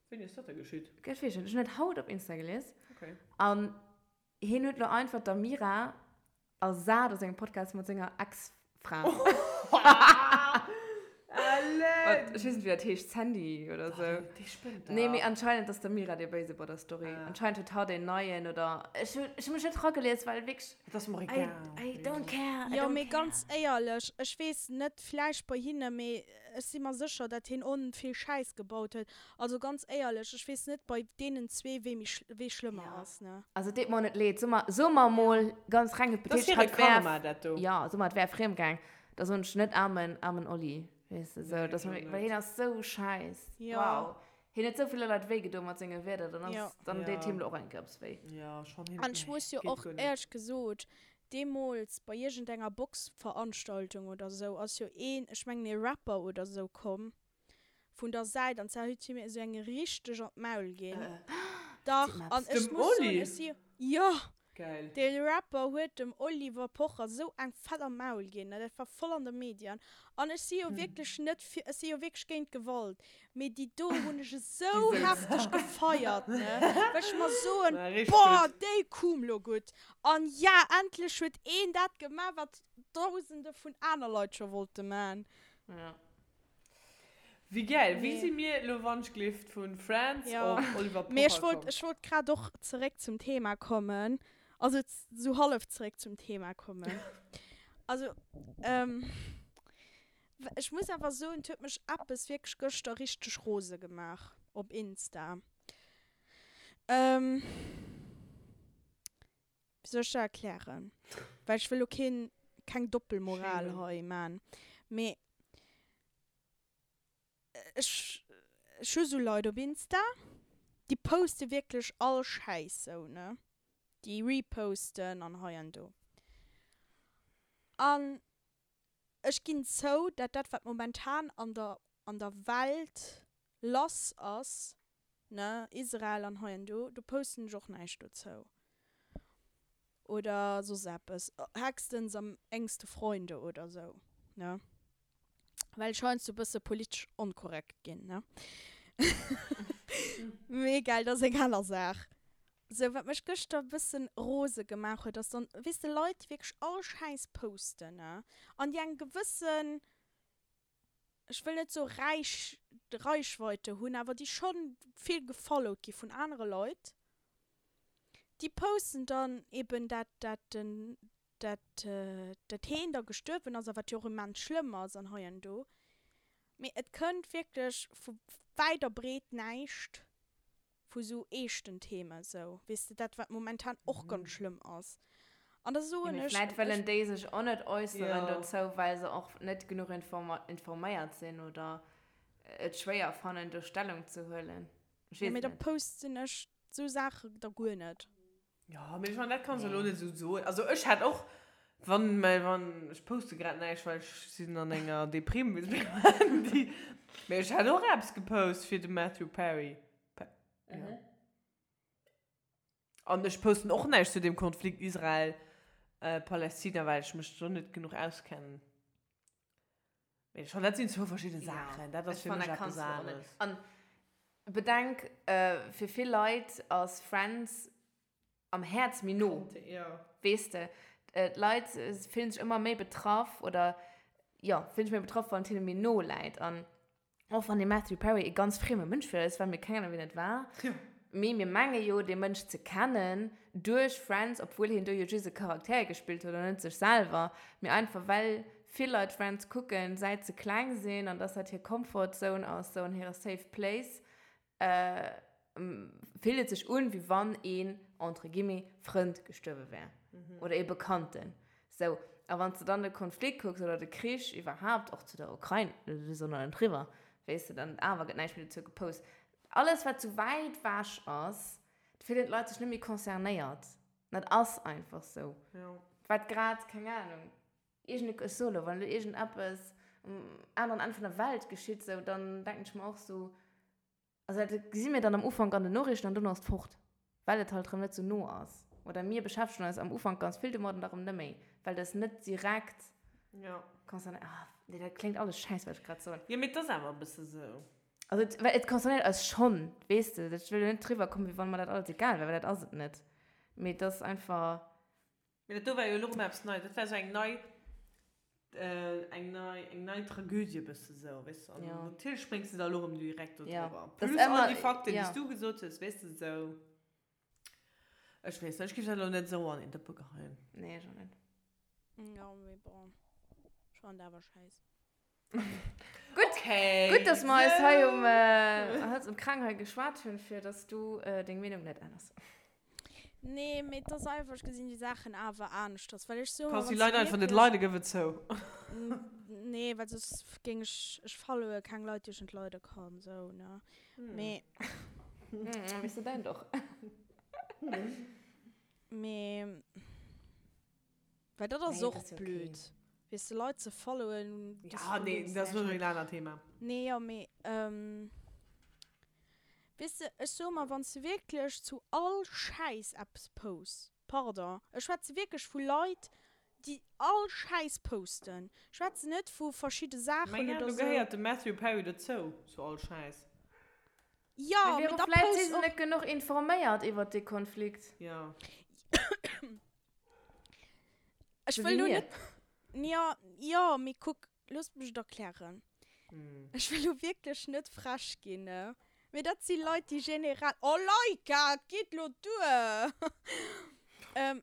Wéini ass dat da geschitt? Ech weess net, ech hunn dat haut op Insta gelies. Okay. An hien huet elo einfach d'Amira ersat a sengem Podcast mat senger Ex-Fra. Ellen! Ech weess net, wéi dat heescht, Sandy oder sou. Déi spënnt dach. Nee, mee anscheinend ass d'Amira déi Béise bei der Story. Ah. Anscheinend huet hatt een neien oder. Ech hu, ech hu mech net ragelies, well wierklech. Et ass mer I, egal. I don't care, I Jo, don't mee care. ganz éierlech, ech weess net, vläicht bei hinne, mee ech si mer sécher, dat hien on vill Schäiss gebaut huet. Also ganz éierlech, ech weess net bei deenen zwee, wee méi, wee schlëmmer Ja. ass, ne? Also et deet mer och net leed. So mer, so mer mol ganz reng Dat ass hypothetesch, hire hatt wär, Karma, dat do. ja, so mer, et wär friemgaang, da soen ech net aarmen, aarmen Olli, weess de, sou, Nee, dass ech mer, och well net. hien ass sou schäiss. Ja. Wow. Hien huet sou ville Leit wéi gedoen mat senge Wierder, dann ass, Ja. dann deet Ja. him lo och eng Kéier eppes wéi. Ja, schon him, An ech nee, muss jo geet och guer net. éierlech gesot, deemools bei iergendenger Boxveranstaltung oder sou ass jo een, ech mengen ee Rapper oder sou komm vun der Säit an zwar huet hie mir esou eng richteg an d'Maul ginn. Dach, an ech Dem muss soen, Oli? ech si, jo! Geil. Dee Rapper huet dem Oliver Pocher sou eng fett am Maul ginn, dat war voll an de Medien. An ech si jo wierklech net fir, ech si jo wierklech géint Gewalt, mee déi do hunn ech esou hefteg gefeiert, ne, well ech mer soen, boah, déi koum lo gutt. An ja, endlech huet een dat gemaach, wat dausende vun aner Leit scho wollte man. Ja. Wéi gäil! Wéi Nee. si mir elo wannschglift vun Friends Ja. op Oliver Mee ech Pocher wollt, komm? ech wollt grad och zeréck zum Thema kommen. Also sou hallef zeréck zum Thema kommen. Also, ähm, ech muss awer soen, et huet mech eppes wierklech gëschter richteg rose gemaach op Insta. Ähm, wéi soll ech dat erklären? Well ech wëll lo keen, keng Doppelmoral Shamen. hei man. Mee ech ech hu sou Leit op Insta, déi poste wierklech all Schäiss sou, ne? Déi reposten an hei an do. An ech ginn zou, dat dat wat momentan an der an der Welt lass ass, ne, Israel an hei an do, do posten ech och näischt dozou oder soss eppes, hechstens am engste Freunde oder sou, ne? Well ech heiansdo e bësse politesch onkorrekt ginn, ne? Mee egal, dat ass eng aner Saach. Sou, wat mech gëschter e bëssen rose gemaach huet, ass dann, weess de, Leit, déi wierklech all Schäiss posten, ne? An déi eng gewëssen, ech wëll net soe Räich, Reichweite hunn, awer déi schonn vill gefollowt gi vun anere Leit, déi posten dann eben dat, dat den dat dat heen da gestuerwen ass a wat jo och immens schlëmm ass an hei an do, mee et kënnt wierklech vu wäit a breet näischt vu sou eeschten Themen, sou, weess de, dat wat momentan och ganz schlëmm ass. An da Jo, soen mee ech, vläit wëllen déi sech och net äusseren Jo. dozou, well se och net genuch informéiert sinn oder et schwéier fannen, do Stellung ze huelen. Ech jo, weess mee et da net. posten ech sou Saache da guer net. Jo, mee ech mengen, dat kanns de elo net esou soen. Also ech hätt och, wann, mä wann, ech poste grad näischt, well ech sinn an enger Deprime, wéi se mir Handy. Mee ech hätt och eppes gepost fir de Matthew Perry. Jo. An ech posten och näischt zu deem Konflikt Israel, Palästina, well ech mech do net genuch auskennen. Mee ech fannen, dat sinn zwou verschidde Saachen. Dat ass fir mech eppes aneres. An bedenk, fir vill Leit ass Friends am Häerz méi no, weess de. D'Leit fillen sech ëmmer méi betraff oder, jo, fillen sech méi betraff, wann et hinne méi no läit. An och wann dee Matthew Perry e ganz frieme Mënsch fir eis war, mir keng Ahnung, wien et war, mee mir menge jo, dee Mënsch ze kennen duerch Friends, obwuel hien do jo just e Charakter gespillt huet an net sech selwer, mee einfach well vill Leit Friends kucken, säit se kleng sinn an dass dat hir Comfort Zone ass, sou an hire safe place, fillt et sech un, wéi wann een, entre guillemets, Frënd gestuerwe wär. Oder ee Bekannten. Sou, a wann s de dann de Konflikt kucks oder de Krich iwwerhaapt, och zu der Ukrain, do ass och nach net eriwwer, weess de, dann awer gëtt näischt méi dozou gepost. Alles, wat sou wäit ewech ass, do fillen d'Leit sech net méi concernéiert. Dat ass einfach sou. Wat grad, keng Anung, iergend, ech soe lo, wann elo iergendeppes um aneren Enn vun der Welt geschitt, sou, dann denken ech mer och sou, Also dat gesi mir dann am Ufank an den Noriichten an dono ass et fort, well et halt erëm net sou no ass. Oder mir beschäftegen eis am Ufank ganz vill domat an da erëm net méi, well dat net direkt concernéiert. Ah, nee, dat kléngt alles schäiss, wat ech grad soen. Jo, mee et ass awer e bësse sou. Also et, well et concernéiert eis schonn, weess de. Ech wëll jo net driwwer kommen, wéi wann mer dat alles egal wär, well dat ass et net. Mee et ass einfach. Mee dat do war jo elo rëm eppes Neies. Dat war sou eng nei, eng nei, eng nei Tragödie bësse sou, weess de. An natierlech spréngs de da elo rëm direkt do driwwer. Plus all déi Fakten, déi s du gesot hues, weess de, sou. Ech weess net, ech géif dat elo net sou an een Dëppe geheien. Nee, ech och net. Jo, mee bon, ech fannen dat awer schäiss. Gutt, okay. Gutt, dass mer eis hei um, äh, Hals um Kraang hei geschwat hunn, fir dass du äh, deng Meenung net änners. Nee, mee et ass einfach, ech gesinn déi Saachen awer aneschters, well ech soe mer, Kanns déi Leit einfach net leiden, gëff et zou. Nee, well soss géing ech, ech followe keng Leit, déi ech net leide kann, sou, ne. Mee. Weess de däin doch. Mee. Well dat ass och blöd, weess de, Leit ze followen. Ja, nee, dat ass elo en anert Thema. Nee, jo, mee, weess de, ech soe mer, wann s de wierklech zu all Schäiss eppes posts, pardon, ech schwätze wierklech vu Leit, déi all Schäiss posten, ech schwätzen net vu verschidde Saachen oder esou. Mä jo, do gehéiert de Matthew Perry dozou, zu all Schäiss. Jo, mee da post och. Vläicht si se net genuch informéiert iwwert dee Konflikt. Jo. Ech wëll lo net. Ja, jo, mee kuck, looss mech et erklären. Ech wëll lo wierklech net frech ginn, ne? Mee dat si Leit, déi generell. Oh Laika, et geet lo duer!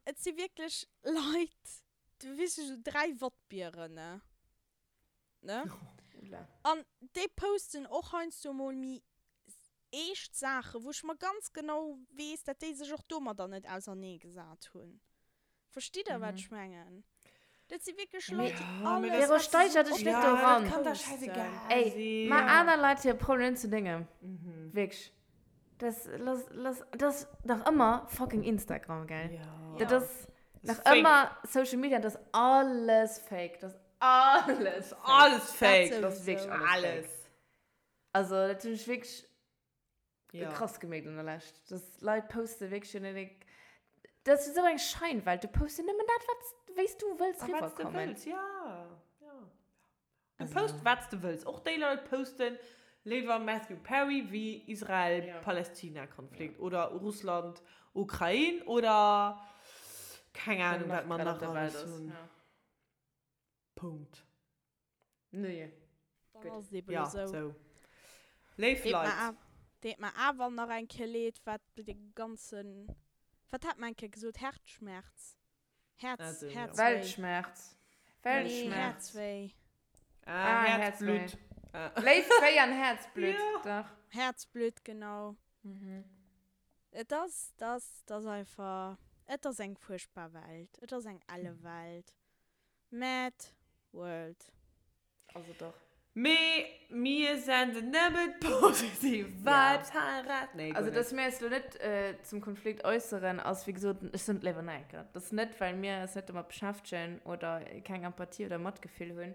Et si wierklech Leit, du weess, esou 3 Wattbieren, ne? Ne? An déi posten och heiansdo mol méi eescht Saachen, wou ech mer ganz genau weess, dat déi sech och domadder net auserneegesat hunn. Verstitt Der, wat ech mengen? Dat si wierklech Leit, déi alles, Vero, wat se steiger sou dech net opfannen, doran. posten. Ey, ma aner Leit hir Problemen zu dengem. Wierklech. Das, lass, lass, das ass nach ëmmer fucking Instagram, gell? Dat ass nach ëmmer Social Media, dat ass alles fake. Dat ass alles fake. Alles fake. Dat ass wierklech alles fake. Also dat hunn ech wierklech ja. krass gemierkt an der Lescht. Dass Leit poste wierklech jo net. Dat ass esou eng Scheinwelt. Du poste nëmmen dat, wat wéi s du wëlls riwwerkommen. Wat s du wëlls, ja. ja. Du post wat s du wëlls. Och déi Leit posten léiwer Matthew Perry wéi Israel-Palästina-Konflikt ja. oder Russland-Ukrain oder keng Ahnung, wat mer nach alles hunn. Ja. Punkt. Nee. Dann ass et eben esou. Ja, sou. Léif Leit. Deet mer awer nach eng Kéier leed, wat de ganzen, wat hat mer eng Kéier gesot, Herzschmerz, Herz, Herzwéi. Weltschmerz. Weltschmerz. Nee, Herzwéi. Ah, Herzblut. Léift, Wéi an Herzblut, dach. Herzblut, genau. Et ass, et ass, et ass einfach, et ass eng fuerchtbar Welt. Et ass eng elle Welt. Mad World. Also dach. Mee mir senden nëmmen positiv Vibes heirat. Nee, guer Also dass mir eis lo net zum Konflikt äusseren ass wéi gesot, ech soen et léiwer nach eng Kéier, dat ass net well mir eis net domat beschäftegen oder keng Empathie oder Matgefill hunn,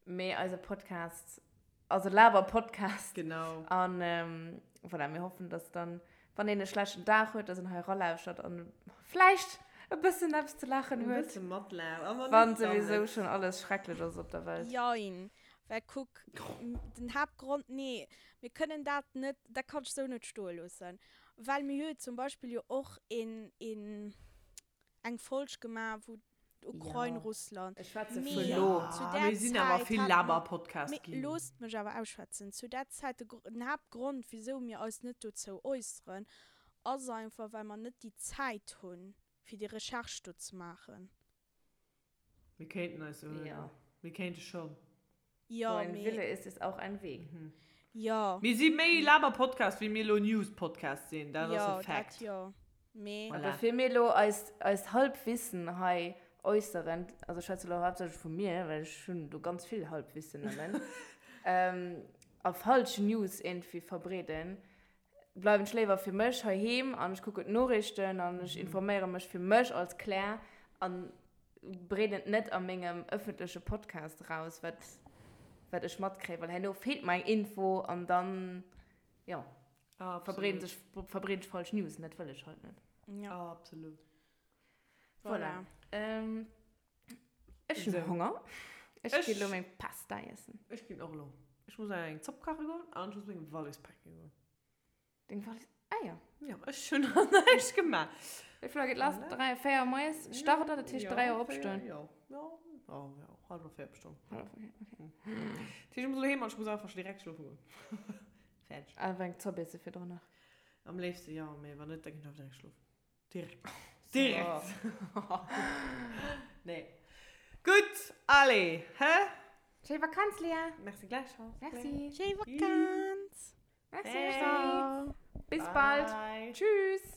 mee eise Podcast ass e Laber-Podcast. Genau. An voilà, mir hoffen, dass dann, wann een e schlechten Dag huet, dass en hei eralauschtert an vläicht e bëssen eppes ze laachen E huet. bësse matlaacht. A wann Wann net, dann souwisou net. schonn alles schrecklech ass op der Welt. Jein. Well kuck, den Haaptgrond, nee, mir kënnen dat net, dat kann ech esou net stoe loossen. Well mir hu jo zum Beispill jo och een, een, eng Folg gemaach, wou. Ukrain, Russland. Ech schwätze vu lo. Zu där Mir sinn awer Zäit vill hat mer, Laber-Podcast mee ginn. loosst mech awer ausschwätzen, zu där Zäit, de den Haaptgrond wisou mir eis net dozou äusseren, ass einfach well mer net déi Zäit hunn fir déi Recherche do ze maachen. Mir kéinten eis jo, mir kéinte schonn. Jo, Wo ein mee. Wille ist, ist auch ein Weg. Jo. Mir si méi Laber-Podcast, wéi mir elo News-Podcast sinn. Dat ass e Jo, dat Fact. jo. Mee. Voilà. Bevir mir elo eist, eist Halbwissen hei äusseren, also ech schwätze elo haaptsächlech vu mir, well ech hunn do ganz vill Halbwissen nëmmen, a falsch News iergendwéi verbreeden, bleiwen ech léiwer fir mech heiheem an ech kucken d'Noriichten an ech informéiere mech fir mech als Claire an breeden et net a mengem ëffentleche Podcast eraus, wat, wat ech matkréien, well herno feelt mer eng Info an dann, jo, verbreeden sech, verbreeden ech falsch News an dat wëll ech halt net. Ja. Absolut. Voilà. Voilà. Ech hunn Honger. Ech Ech- ginn elo meng Pasta iessen. Ech ginn och elo. Ech muss nach eng Zopp kache goen an ech muss meng Wallis pake goen. Deng Wallis? Ah jo. Jo, ech hunn nach näischt gemaach. Wéi vill Auer geet lass? 3, 4 moies start dat, dat heescht 3 Auer opstoen. Jo, jo, jo, jo, hallwer 4 opstoen. Hallwer 4, okay. Dat heescht, ech muss elo heem an ech muss einfach scho direkt schlofe goen. Fäerdeg. Awer eng Zopp iesse virdrun nach. Am léifste jo, mee wann net, da ginn ech einfach direkt schlofen. Direkt. Direkt. Nee. Gutt, allez, hä? Schéi Vakanz, Léa. Merci gläichfalls. Merci. Schéi Vakanz. Merci. Bis bald. Tschüss.